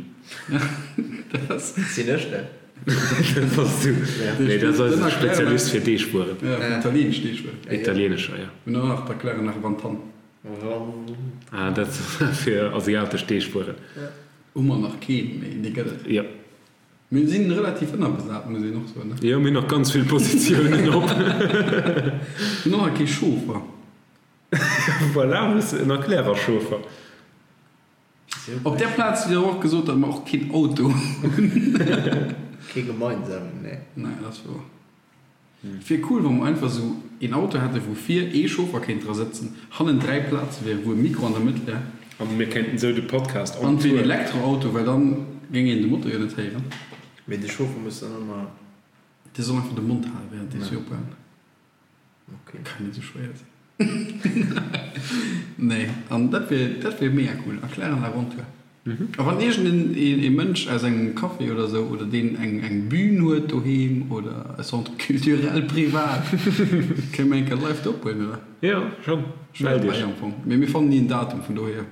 S3: Dat ass.
S2: Sinn ech dat?
S1: Dat bass du. Nee, dat ass eise Spezialist fir Deegwueren.
S3: Ja, fir italienesch Deegwueren.
S1: Italienescher, ja.
S3: Mir hunn och nach d'Erklärer nach Wantan.
S1: Ah, dat fir asiatesch Deegwueren.
S3: Hu mer nach keen, mee dee gëtt et.
S1: Jo.
S3: Mir si relativ ënnerbesat, muss een och soen, ne?
S1: Jo, mir hunn nach ganz vill Positiounen op.
S3: Mir hunn och nach kee Chauffer.
S1: Voilà, hues en Erklärer-Chauffer.
S3: Op där Plaz hutt Dir och gesot, datt mer och keen Auto hunn.
S2: Kee gemeinsamen, nee.
S3: Nee, dat ass wouer. Et wier cool, wa mer einfach esou een Auto hätten, wou vir ee Chauffer kéint dra sëtzen, hannen 3 Plaze wieren, wou e Mikro an der Mëtt wär.
S1: A mir kéinten esou de Podcast
S3: on
S1: An
S3: et wier
S1: Tour.
S3: en Elektroauto, well dann géing een de Motor jo net héieren.
S2: Mee de Chauffer muss dann ëmmer.
S3: Dee soll einfach de Mond halen, während dee se opbauen.
S2: Okay.
S3: Kann net sou schwéier sinn. Nee, an dat wier, dat wier mega cool. Erklären la Aventure. A wann iergend een, ee Mënsch aus engem Café oder sou, oder deen eng, eng Bühn huet doheem oder e Centre culturel privat, kënne mir eng Kéier live do ophuelen, oder?
S1: Jo, schonn.
S3: Ech wär
S1: Mellt
S3: dobäi
S1: iech.
S3: am Fong. Mee mir fannen ni en Datum, vun dohier.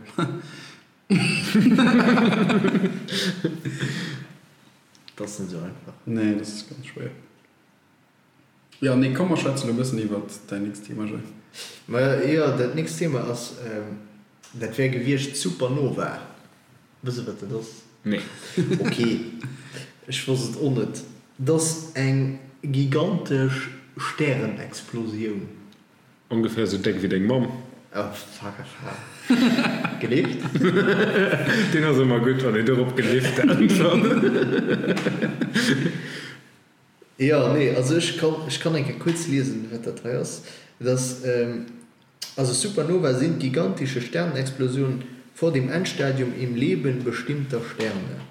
S2: Dat ass net esou einfach.
S3: Nee, dat ass ganz schwéier. Jo, nee, komm mer schwätzen elo e bëssen iwwert däin nächst Thema, Joé.
S2: Ma jo, dat nächst Thema ass, dat wär gewiescht Supernova. Wëss e wat dat ass?
S1: Nee.
S2: Ok, ech wosst et och net. Dat ass eng gigantesch Stärenexplosioun.
S1: Ongeféier sou déck wéi deng Mamm.
S2: Oh fuck off ha gelift.
S1: Deen ass ëmmer gutt wann een dorop gelift äntwert.
S2: Jo nee also ech kann ech kann eng Kéier kuerz liesen wat dat hei ass. Et ass also Supernova sind gigantische Sternenexplosionen vor dem Endstadium im Leben bestimmter Sterne.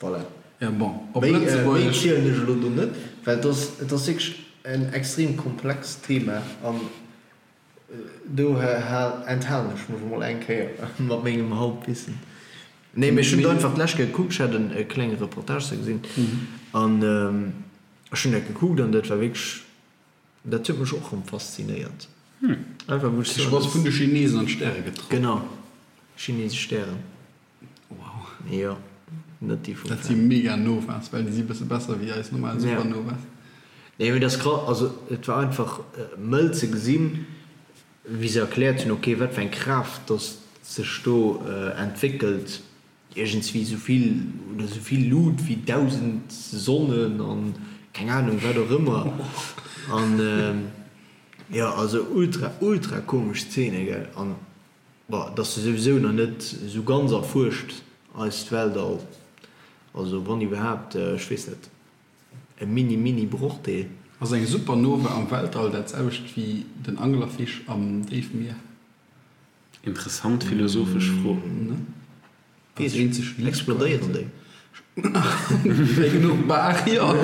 S2: Voilà.
S3: Ja bon, op
S2: Méi
S3: Lëtzebuergesch.
S2: zielen ech elo do net, well et ass, et ass wierklech en extrem komplext Thema an do enthalen ech mech emol eng Kéier mat mengem Halbwissen. Nee, mee ech hunn et einfach d'lescht Kéier gekuckt, ech hat en klenge Reportage ze gesinn an ech hunn dat gekuckt an dat war wierklech, dat huet mech och erëm faszinéiert. Einfach wou ech
S3: soen,
S2: dass.
S3: Vun de Chinesen an d'Stäre getraff.
S2: Genau, chinesesch Stären.
S3: Wow.
S2: Jo, net déi vum
S3: Dat si mega Novas, well déi si bësse besser wéi eis normal Supernovas.
S2: Nee, mee dat ass krass. Also et war einfach mëll ze gesinn, wéi se erkläert hunn, ok, wat fir eng Kraaft dass sech do entwéckelt, iergendswéi esou vill oder esou vill Lut wéi 1.000 Sonnen an keng Anung wat och ëmmer. An jo, also ultra, ultra komesch Szene, gell. An Bon, et ass jo souwisou nach net esou ganz erfuerscht, eist Weltall. Also wann iwwerhaapt, ech weess net, e mini mini Brochdeel.
S3: Ass eng Supernova am Weltall dat selwecht wéi den Anglerfisch am Déifmier?
S1: Interessant philosophesch Fro.
S3: Ne?
S2: Weess ech net. Explodéieren déi?
S3: Wéi genuch Baach, jo.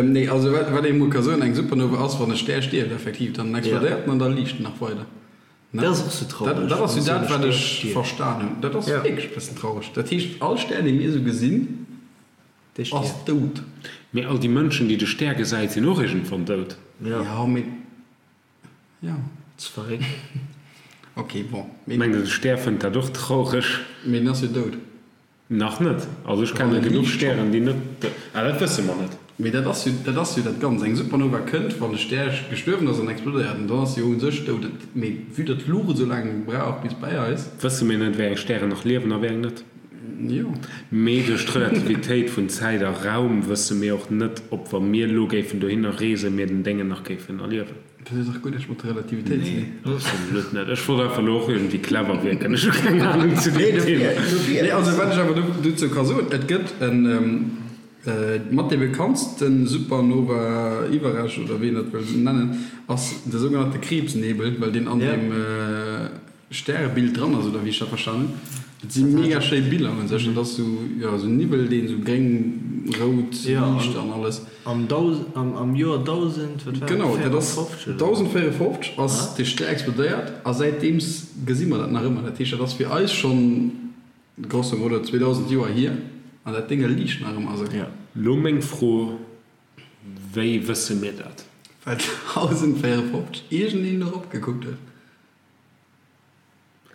S3: Nee, also wat ee mol ka soen, eng Supernova ass, wann e Stär stierft effektiv, dann explodéiert en an da liicht en nach weider.
S2: Dat ass och sou traureg.
S3: Dat ass jo dat, wat ech verstan hunn. Dat ass wierklech e bëssen traureg. Dat heescht, all Stär, dee mir esou gesinn, ass dout.
S1: Mee all déi Mënschen, déi de Stär gesäit, sinn och iergendwann dout.
S3: Jo, mee Jo.
S2: Ze verréckt.
S3: Ok, bon.
S1: Mengt der de Stär fënnt dat och traureg?
S3: Mee en ass jo dout.
S1: Nach net. Also ech kenne genuch Stären déi net, ah dat wësse mer net.
S3: Mee dat ass jo, dat ass jo dat Ganzt. Eng Supernova kënnt wann de Stär gestuerwen ass an explodéiert an dann ass se jo u sech dout. Mee vue datt d'Luucht esou laang brauch bis bäi eis.
S1: Wësse mir net wéi eng Stären nach liewen a wéi eng net.
S3: Jo.
S1: Mee duerch d'Relativitéit vun Zäit a Raum wësse mir och net ob wa mir elo géifen dohinner reesen mir den Déngen nach géifen erliewen.
S3: Dat huet dach guer näischt mat der Relativitéit ze
S1: dinn. Nee, absolut net. Ech wollt einfach elo och iergendwéi clever wierken. Ech hu keng Anung zu deem Thema.
S3: Nee, also wat ech awer dozou ka soen, et gëtt en, mat dee bekanntste Supernova-Iwwerrescht, oder wéi een dat wëll nennen, ass de sougenannte Krebsnebel, well deen an deem Stärebild dran ass, oder wéi ech dat verstanen hunn. Et si mega schéi Biller un sech. Dat ass sou, jo, sou Niwwel, deen sou gréng, rout liicht an alles.
S2: Am am Joer 1000, wat war dat,
S3: Genau, dat ass 1054 ass dee Stär explodéiert a säitdeems gesi mer dat nach ëmmer. Dat heescht, dat ass fir eis schonn grosso modo 2000 Joer hier an dat Dénge liicht nach ëmmer esou.
S1: Lo meng Fro, Wéi wësse mir dat?
S3: Well 1054 iergendeen erop gekuckt huet.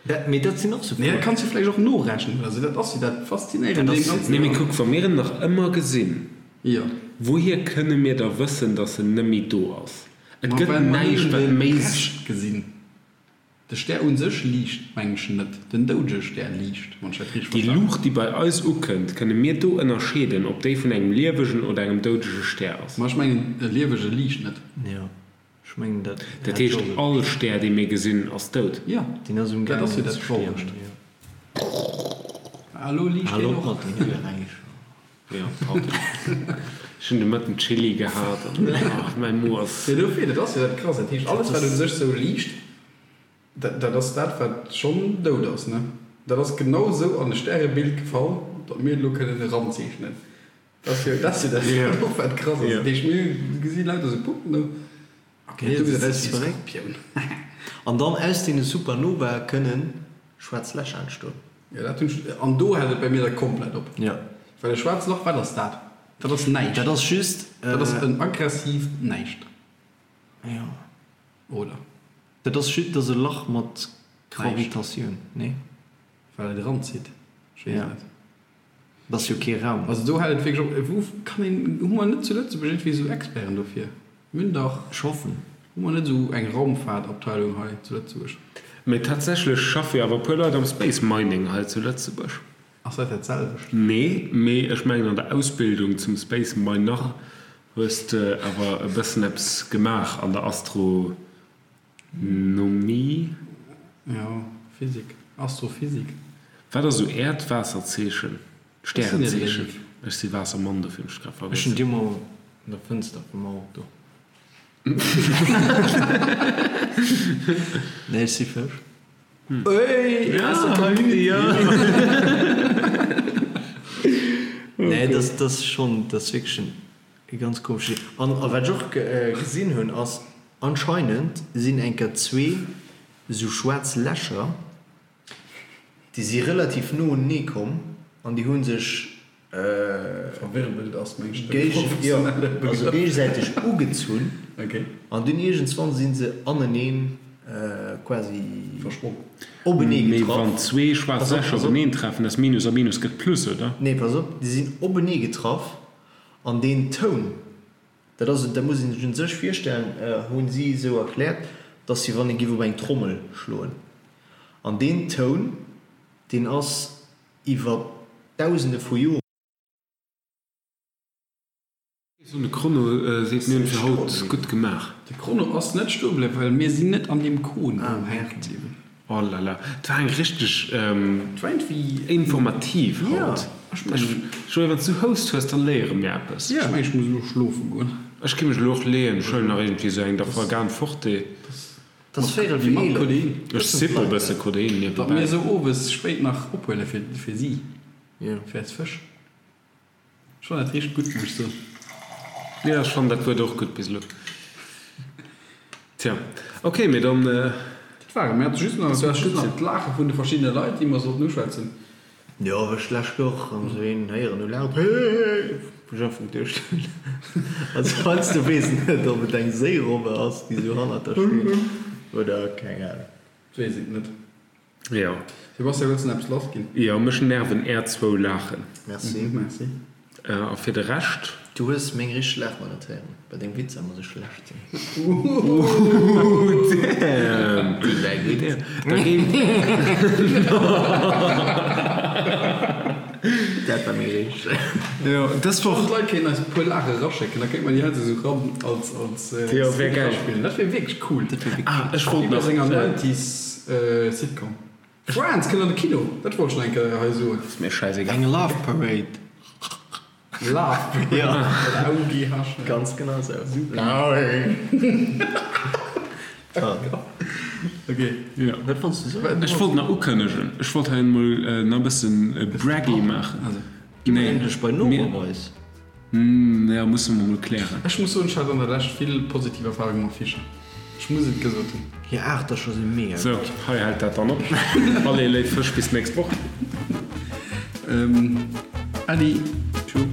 S2: Dat, mee dat sinn och sou
S3: Froen. Nee, dat kanns du vläicht och norechnen oder sou. Dat ass jo dat Faszinéierend un deem Ganzen.
S1: Nee, mee kuck, wa mir en nach ëmmer gesinn,
S3: Jo.
S1: wouhier kënne mir da wëssen, datt en net méi do ass? Et
S3: Ma
S1: gëtt
S3: well mer
S1: näischt,
S3: nëmmen
S1: wat
S3: de
S1: méi.
S3: Rescht gesinn. De Stär u sech liicht, meng ech, net. Den doudege Stär liicht, wann ech dat richteg
S1: Déi
S3: verstanen hunn.
S1: Luucht, déi bei eis ukënnt, kënne mir do ënnerscheeden, ob déi vun engem liewegen oder engem doudege Stär ass?
S3: Ma ech mengen, e liewege liicht net.
S2: Jo. Ech mengen dat
S1: Dat heescht all Stär dee mir gesinn ass dout?
S3: Jo,
S2: Deen ass um
S3: dat ass jo
S2: gaangen
S3: dat
S2: ze stierwen,
S3: Trauregt.
S2: jo.
S3: Ah, elo liicht
S2: Hal
S3: deen
S2: op
S3: och.
S2: mat den Geräischer.
S1: Jo, pardon. Ech hunn de Mëtten Chili gehat an ach, mäi Mo ass.
S3: Jo, dofir, dat ass jo dat Krasst. Dat heescht alles wat u sech sou liicht, dat dat ass dat wat schonn dout ass, ne? Dat ass genau sou an e Stärebild gefall, datt mir et elo kënnen eranzeechnen. Dat ass jo dat ass jo dat och wat krass ass. Dat heescht mir gesi lauter sou Puppen do. Ok, do gesäit aus wéi e Skorpioun.
S2: An dann aus deene Supernovae kënnen schwaarz Lächer entstoen.
S3: Jo dat hunn ech, an do hält et bei mir da komplett op.
S2: Jo.
S3: Well e schwaarzt Loch, wat ass dat? Dat ass näischt.
S2: Dat ass just.
S3: Dat ass en aggressiivt Näischt.
S2: Jo.
S3: Oder?
S2: Dat ass just, dat ass e Lach mat. Gravitatioun, nee?
S3: Well et eranzitt? Ech weess et net.
S2: Et ass jo kee Raum.
S3: Also do hält et wierklech op. Wou kann een, hu mer net zu Lëtzebuerg iergendwéi esou Experten dofir? Mir hunn dach.
S2: Ech hoffen.
S3: Hu mer net esou eng Raumfahrtabteilung hei zu Lëtzebuerg?
S1: Mee tatsächlech schaffe jo awer e puer Leit am Space Mining hei zu Lëtzebuerg.
S3: Ass dat dat selwecht?
S1: Nee, mee ech mengen an der Ausbildung zum Space Miner hues de awer e bëssen eppes gemaach an der Astro. Nomie?
S3: Jo, Physik, Astrophysik.
S1: Wat ass esou Äert Waasserzeechen? Stärenzeechen? Ech si Waassermann, dofir hunn ech grad
S2: vergiess. Ech hunn déi mol an der Fënster vum Auto. Nee, ech si Fësch.
S3: Ey, aus der Community!
S2: Nee, dat ass schonn, dat ass wierklech e ganz komesche. An wat ech och gesinn hunn, ass, Anscheinend sinn enker zwee sou schwaarz Lächer, déi si relativ no unenee komm an déi hu sech géigesäiteg ugezunn an dunn iergendswann si se aneneen quasi openee
S1: Mee getraff. wann zwee schwaarz Lächer openeen treffen, ass Minus a Minus gëtt Plus, oder?
S2: Nee, pass op, déi sinn openee getraff an deen Toun, Dat ass, dat muss een sech un sech virstellen, hu si esou erkläert, dass wéi wann ee giff op eng Trommel schloen. An deen Toun, deen ass iwwer Dausende vu Joren.
S1: De Chrono seet mir hunn fir haut gutt gemaach.
S3: De Chrono ass net stoe bliwwen, well mir sinn net an deem Kon do hänke bliwwen.
S1: Oh là là, et war eng richteg informativ haut. Joé, wann s du Houst hues, dann léiere mir eppes.
S3: Ech mengen, ech muss elo schlofe goen.
S1: Ech gi mech elo och leeën. Ech huelen nach iergendwéi esou eng Dafalgan Forte.
S3: Mat Codein.
S1: Ech sippe e bësse Codein
S3: niewebäi. Datt mir esou owes spéit nach ophuele fir si, fir eis Fësch. Ech fannen dat richteg gutt, muss ech soen.
S1: Jo, ech fannen dat Wuert och gutt bis elo. Tja, ok, mee dann.
S3: Dat war et. Mir hate just nach, du has just nach d'Laache vun de verschiddene Leit, déi mer sollten uschwätzen.
S2: Jo, wéi ech d'lescht Woch erëm esou een héieren hu laachen, hehehe, wou ech einfach geduecht hunn, also heiansdo weess een net, ob et eng Séirobbe ass, déi esou hannert der steet, oder keng Ahnung.
S3: Weess et net.
S1: Jo.
S3: Sebastian, wëlls de nach eppes lass ginn?
S1: Jo, mech nerven är zwou Laachen.
S2: Merci.
S3: Merci.
S1: A fir de Rescht?
S2: Du hues meng richteg Laach nach net héieren. Bei dengem Witzer muss ech schlecht sinn.
S1: Ooh, damn!
S2: Déi war gutt.
S1: Da géing.
S2: Dat war meng richteg.
S1: Jo, dës Woch.
S3: D'Leit kéinten eis e puer Laache raschécken, da kéinte mer déi hei esou ran als, als
S1: Jo, wär geil.
S3: Eraspillen. Dat wier wierklech cool.
S2: Dat wier wierklech
S1: Ah, ech wollt
S3: Wéi bei
S1: nach.
S3: senger Nineties Sitcom. Friends kënnt an de Kino, dat wollt ech nach eng Kéier hei soen.
S1: Ass mir schäisegal.
S2: Eng Love Parade.
S3: Love Parade.
S2: Jo.
S3: L-A-U-G-H.
S2: Ganz genau esou.
S3: Super. Ok.
S1: Jo.
S2: Wat wollts du soen?
S1: Ech wollt nach ukënnegen, ech wollt hei emol nach e bëssen braggy maachen.
S2: Also, gi mer endlech bei Noroweis.
S1: Ja, musse mer mol klären.
S3: Ech muss soen, ech hat an der Lescht vill positiv Erfahrungen mat Fischer. Ech muss et gesot hunn.
S2: Hir Aachtercher si mega
S1: Sou,
S2: gutt.
S1: hei hält dat dann op. Allez, léif Fësch, bis d'nächst Woch.
S3: Äddi. Tschou.